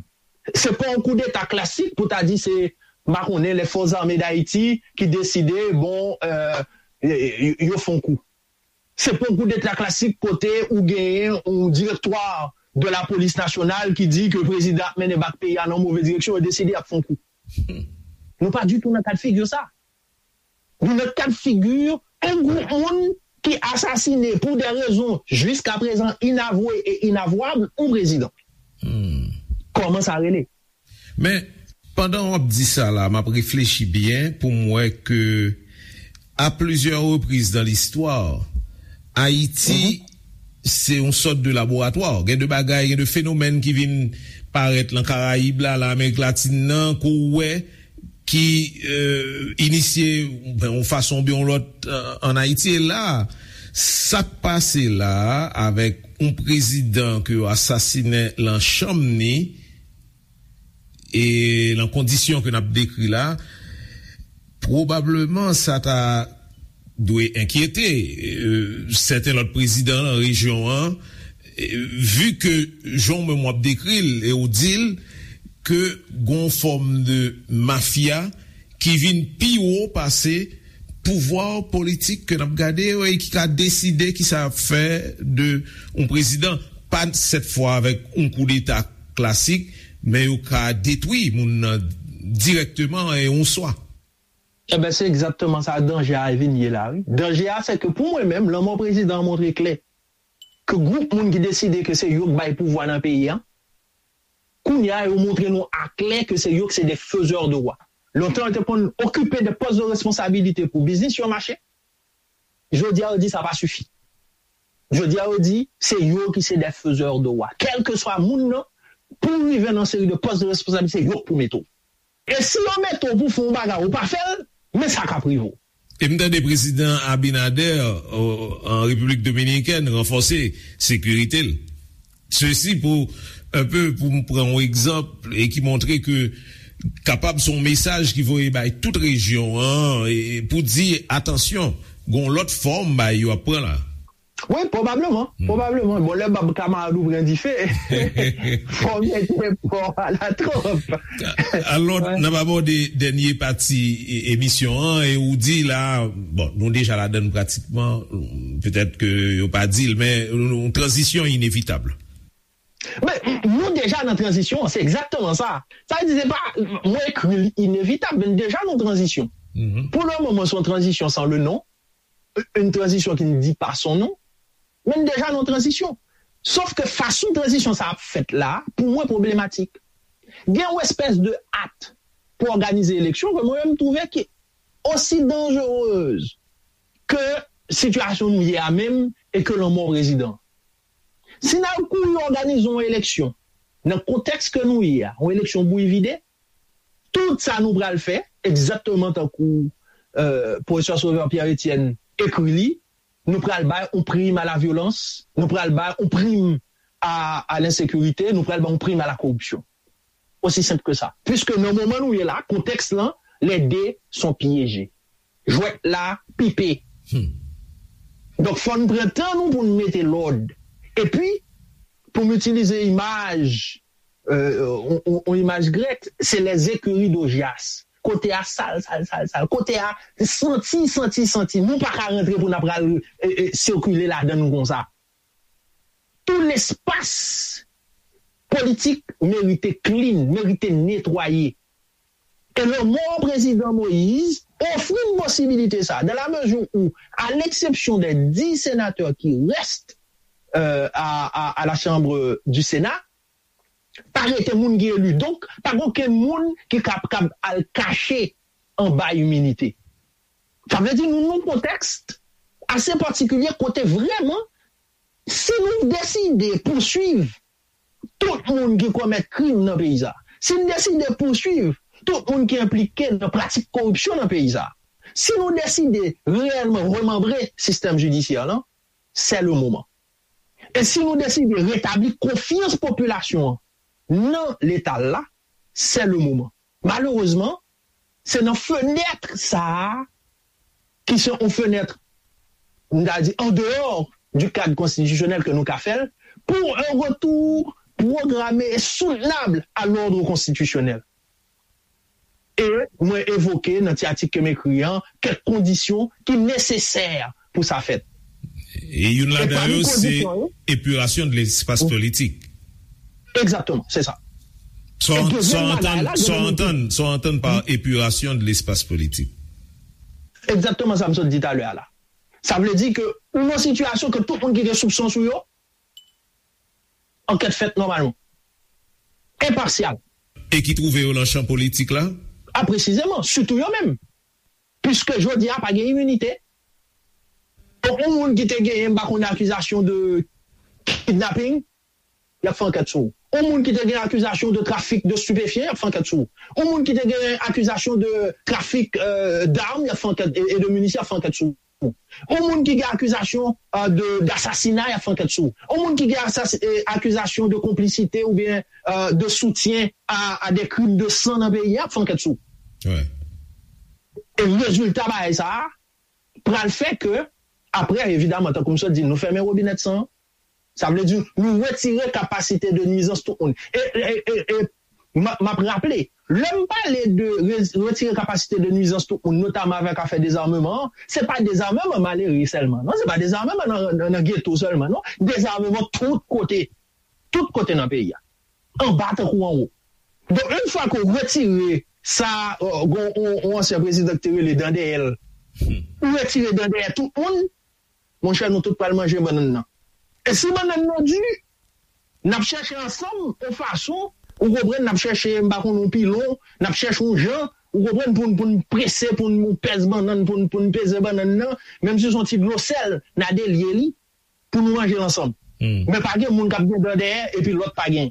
se pa yon koudeta klasik pou ta di se, m pa konnen, les forces armées d'Haïti ki deside, bon, euh, yo, yo fè yon kou. Se pa yon koudeta klasik kote ou genyen yon directoire de la police nationale ki di ke prezidan ap mennen bak peyi a nan move direksyon, yo deside y ap fè yon kou. Nou pa ditou nan kad figi sa. Nou nan kad figi yon gwoup moun ki asasine pou de rezon jiskaprezan inavwe e inavwab yon prezidan. Kòman sa rele? Men, pandan w ap di sa la, m ap reflechi byen pou m wè ke, a plizyè repriz nan listwa, Ayiti se yon sòt de laboratwa. Gen de bagay, gen de fenomèn ki vin parèt lan Karayib la, lan Amerik Latin nan, ke w wè ki, euh, inisye, ben, yon fason oubyen yon lòt, euh, ann Ayiti. E la, sa k pase la avèk yon prezidan ke yo asasinen lan chanm ni, e lan kondisyon ke n ap dekri la, pwobableman sa ta dwe enkyete, euh, sèten lòt prezidan lan rejyon an, euh, vi ke jan w menm w ap dekri l e w di l ke gon fòm de mafya ki vin pi wo pase pouvwa politik ke n ap gade yo e ki ka deside kisa y ap fè de yon prezidan, pa sèt fwa avèk yon koudeta klasik, men yo ka detwi moun nan dirèkteman e yon swa. Ebyen, se egzakteman sa danje a vin ye la, wi. Danje a, se ke pou mwen menm, lanmò prezidan an montre klè ke gwoup moun ki deside ke se yo k bay pouvwa nan peyi a, kounye a, yo montre nou aklè ke se yo ki se de fezè de wa. Lontan, yo te konn okipe de pòs de responsabilite pou biznis yo mache. Jodi a, yo di sa pa sifi. Jodi a, yo di se yo ki se de fezè de wa. Kèlkeswa moun nan, pou w rive nan seri de pòs de responsabilite, se yo k pou mete w. E si yo mete w pou fè yon bagay, ou pa fè l, men sa k ap rive w. E m tande prezidan Abinader, o, an Repiblik Dominikèn, ranfòse sekirite l. Sesi pou, enpe, pou m pran yon egzanp e ki montre ke kapab se yon mesaj ki voye bay tout rejyon an, e pou di, atansyon, gen yon lòt fòm bay yo ap pran la. Wi, pwobableman, pwobableman. Bon, lè bab kamarad ou pran dife, fò w mete pò a la twòp. Alò, n ap abòde dènye pati e- emisyon an, e ou di la, bon, nou deja ladann pratikman, petèt ke yo pa di l, men yon tranzisyon inevitab. Men, nou deja nan tranzisyon an, se egzakteman sa. Sa vle di, se pa, mwen ekri l inevitab, men deja nan tranzisyon. Pou le moman, se yon tranzisyon san le non, une transition qui ne dit pas son nom, men deja nan tranzisyon. Sòf ke fason tranzisyon sa ap fèt la, pou mwen, pwoblematik. Gen yon espès de at pou òganize eleksyon ke mwen menm m twouve ki osi danjerez ke sitiyasyon nou ye a menm e ke lanmò prezidan. Si n al kouri òganize yon eleksyon nan kontèks ke nou ye a, yon eleksyon bouyi vide, tout sa nou pral fè, egzakteman tankou, euh, pwofesè Sauveur Pierre Etienne ekri li, nou pral bay yon prim a la vyolans, nou pral bay yon prim a, a lensekirite, nou pral bay yon prim a la koripsyon. Osi senp ke sa. Piske nan moman nou ye la, kontèks lan, les deux sont piégés. Jwèt la pipe. Donk, fò n pran tan nou pou n mete lòd. Epi, pou m itilize imaj, euh, on, on, on imaj grèk, se les écuries d'Augias. Kote a sal, sal, sal, sal. Kote a santi, santi, santi. Nou pa ka rantre pou n ap pral, e, e, sikile ladan l konsa. Tout lespas politik merite clean, merite netwaye. E lanmò prezidan Moïse ofri n posibilite sa, dans la mesure où, à l'exception des dix sénateurs qui restent, euh, à, à, à la Chambre du Sénat, pa rete moun ki eli. Donk, pa gen okenn moun ki kab, kab al kache anba iminite. Sa vle di nou nan yon kontèks ase patikilye kote vrèman, si nou deside pouswiv tout moun ki komèt krim nan peyi sa, si n deside pouswiv tout moun ki enplike nan pratik koripsyon nan peyi sa, si nou deside reyèlman remanbre sistèm jidisyè lan, c'est le moment. E si nou deside retabli konfyans popilasyon an nan Leta l la, c'est le moment. Malerezman, se nan fenèt sa a, ki se yon fenèt, m ta di, en dehors du cadre constitutionnel ke nou ka fè l, pour un retour programmé et soutenable à l'ordre constitutionnel. E mwen evoke nan ti atik ke m ekri an kèk kondisyon ki nesesè pou sa fèt. E youn ladan yo, se epirasyon de lespas politik. Egzakteman, se sa. Sa w antann, sa w antann pa epirasyon de lespas politik. Egzakteman sa m sot di talè a la. Sa vle di ke ou nan sitiyasyon ke tout moun ki gen soupson sou yo, ankèt fèt nòmalman. Enpasyal. E ki twouve yo nan chan politik la? A, presizeman, sitou yo menm. Piske jodi a pa gen iminite. Donk, yon moun ki te genyen, m pa konnen, akizasyon de kidnapping, y ap fè ankèt sou ou. Yon moun ki te gen akizasyon de trafik de stupéfiants, y ap fè ankèt sou ou. Yon moun ki te gen akizasyon de trafik, euh, d'armes, y ap fè ankèt, e, e de minisyon, y ap fè ankèt sou ou. Yon moun ki gen akizasyon, euh, de, d'assassinat, y ap fè ankèt sou ou. Yon moun ki gen asas-, e, akizasyon de konplisite oubyen, euh, de soutien à, à des crimes de sang nan peyi a, y ap fè ankèt sou ou. E rezilta bagay sa a pral fè ke, apre, evidaman, tankou m sot di, nou fèmen wobinèt san an. Sa vle di, nou retire kapasite de nwizans tout moun. E, e, e, e, m a, m ap raple, lè m pale de re-, retire kapasite de nwizans tout moun, notaman avèk afè dezameman an, se pa dezameman malere sèlman, non, se pa dezameman nan, nan, nan geto sèlman, non, dezameman tout kote, tout kote nan peyi a, anba tankou anwo. Donk, yon fwa ke w retire sa, euh, gon yon, yon ansyen prezidan ki te rele dan dèyè l. Ou retire dan dèyè tout moun, monchè, nou tout pral manje bannann nan. E si bannann nan di, n ap chèche ansanm yon fason, ou konprann, n ap chèche, m pa konn, yon pilon, n ap chèche yon jan, ou konprann, pou n, pou n prese, pou n pèse bannann, pou n, pou n peze bannann nan, menm si se yon ti dlo sèl, n a delye li, pou nou manje l ansanm. Men pa gen moun k ap gen dan dèyè, epi lòt pa gen.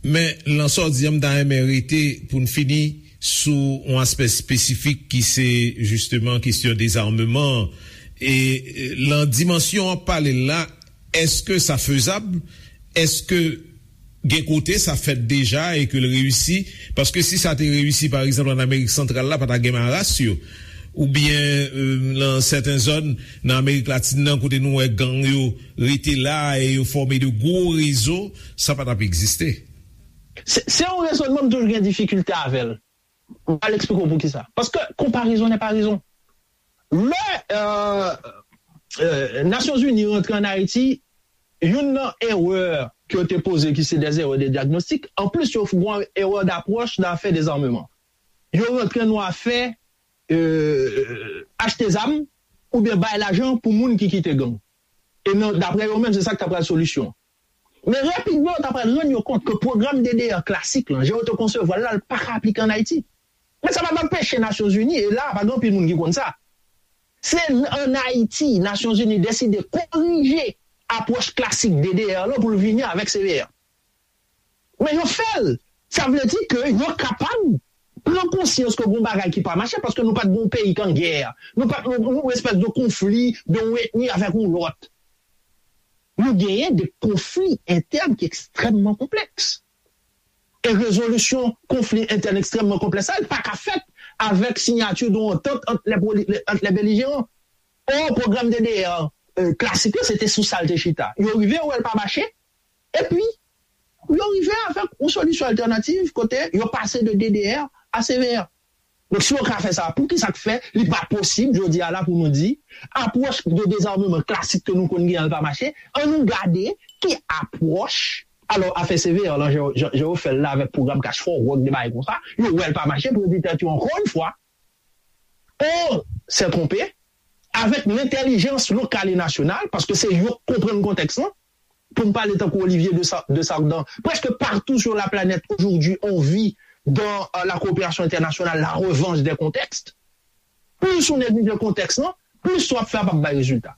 Men, lan sa w di an, m ta renmen rete pou n fini sou yon aspè espesifik ki se, jisteman, kesyon dezameman an. E, e, lan dimansyon w ap pale l la, èske sa fezab? Èske gen kote sa fèt deja e ke l reyisi? Paske si sa te reyisi, pa egzanp, ann Amerik Santral la, pa ta gen maras yo. Oubyen, e, lan sèten zòn nan Amerik Latin nan, kote nou wè gang yo rete la e yo fòme de gwo rezo, sa pa t ap egziste. Se, se yon rezònman m toujou gen difikilte avè l. M pral eksplike w poukisa. Paske konparezon nè pa rezon. Lè, euh, euh, Nasyonzini rantre ann Ayiti, youn nan erè ke yo te poze ki se des erreurs de diagnostic, anplis yo fè yon erè d'approche nan afè dezarmeman. Yo rantre nan afè, euh, achte zam oubyen bay lajan pou moun ki kite gang. E nan, daprè yo menm, se sa k ta pral solisyon. Men rapidman, yo ta pral rann yo kont ke pwogram D D R klasik lan, jan yo te konsevwa l la, l pa ka aplike ann Ayiti. Men sa pa t anpeche Nasyonzini, e la, pa gen anpil moun ki konn sa. Se ann Ayiti, Nasyonzini deside korije apwòch klasik D D R lan pou l vini avèk C V R. Men yo fè l. Sa vle di ke yo kapab pran konsyans ke gon bagay ki pa mache, paske nou pa t gon peyi k an gè. Nou pa t yon, yon espès de konfli de yon etni avèk yon lòt. Nou genyen de konfli entèn ki ekstrèmman konplèks. E rezolisyon konfli entèn ekstrèmman konplèks sa, li pa ka fèt avèk siyati de yon antant ant lè, ant lè belijeran. Or, pwogram D D R, euh, klasik yo, se te sou sa l te chita. Yo rive wè l pa mache, epi yo rive avèk yon solisyon altènativ kote yo pase de D D R a C V R. Donk, si yo ka fè sa, poukisa k fè li pa posib jodi a la pou nou di apwòch de dezarmeman klasik ke nou konn genyen an pa mache? Ann nou gade ki apwòch. Alò, afè C V R lan, jan, jan, jan yo fè l la avèk pwogram Cash for Work, de bagay konsa, yo wè l pa mache, pou yo di tèt yo, ankò yon fwa, on s'est trompé, avèk lentèlijans lokal e nasyonal, paske se yo k konprann kontèks lan, pou m pale tankou Olivier de Sa-, de Sardan, presque partout sur la planète aujourd'hui, on vit dans, euh, la coopération internationale, la revanche des contextes. Plis ou neglije kontèks lan, plis sa w ap fè a p ap bay rezilta.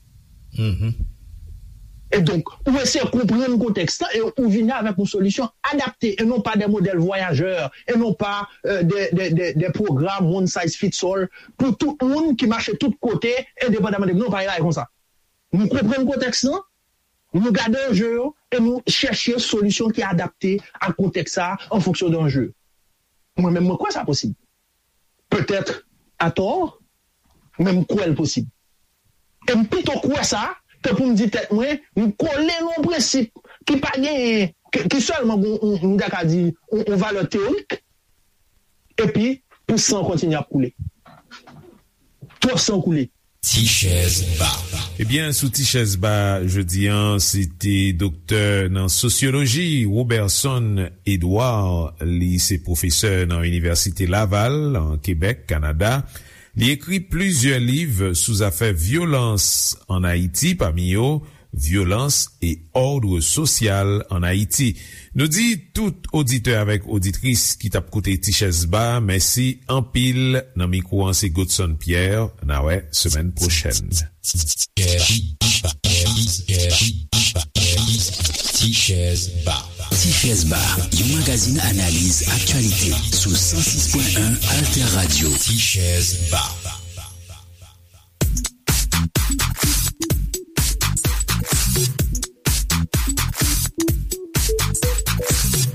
E donk, ou eseye konprann kontèks lan e ou vini avèk yon solisyon adapte e non pa de modèl vwayajè e non pa, euh, de, de, de, de pwogram one size fits all pou tout moun ki mache tout kote, endepandaman de, non, pa yon bagay konsa. Nou konprann kontèks lan, nou gade anje yo e nou chèche solisyon ki adapte ak kontèks sa a an fonksyon de anje yo. Mwen menm, mwen kwè sa posib. Petèt atò, men m kwè l posib. E m pito kwè sa ke pou m di tèt mwen, m kole nan yon prensip ki pa genyen, ki, ki sèlman gon, m, m ta ka di, yon, yon valè teyorik, epi pou san kontinye ap koule. Twòp san koule. Ti chèz ba. Ebyen, sou Ti chèz ba jodi a, se te doktè nan sosyoloji, Roberson Edouard. Li se pwofesè nan Inivèsite Laval, an Kebèk, Kanada. Li ekri plizyè liv sou zafè vyolans ann Ayiti, pami yo, Violence et ordre social en Haïti. Nou di tout oditè avèk oditris ki t ap koute Ti Chèz Ba, mèsi anpil. Nan mikwo an se Godson Pierre. N a wè semèn pwochèn. Ti Chèz Ba. Ti Chèz Ba, yon magazin analiz aktyalite sou san sis pwen en Alter Radio. Ti Chèz Ba.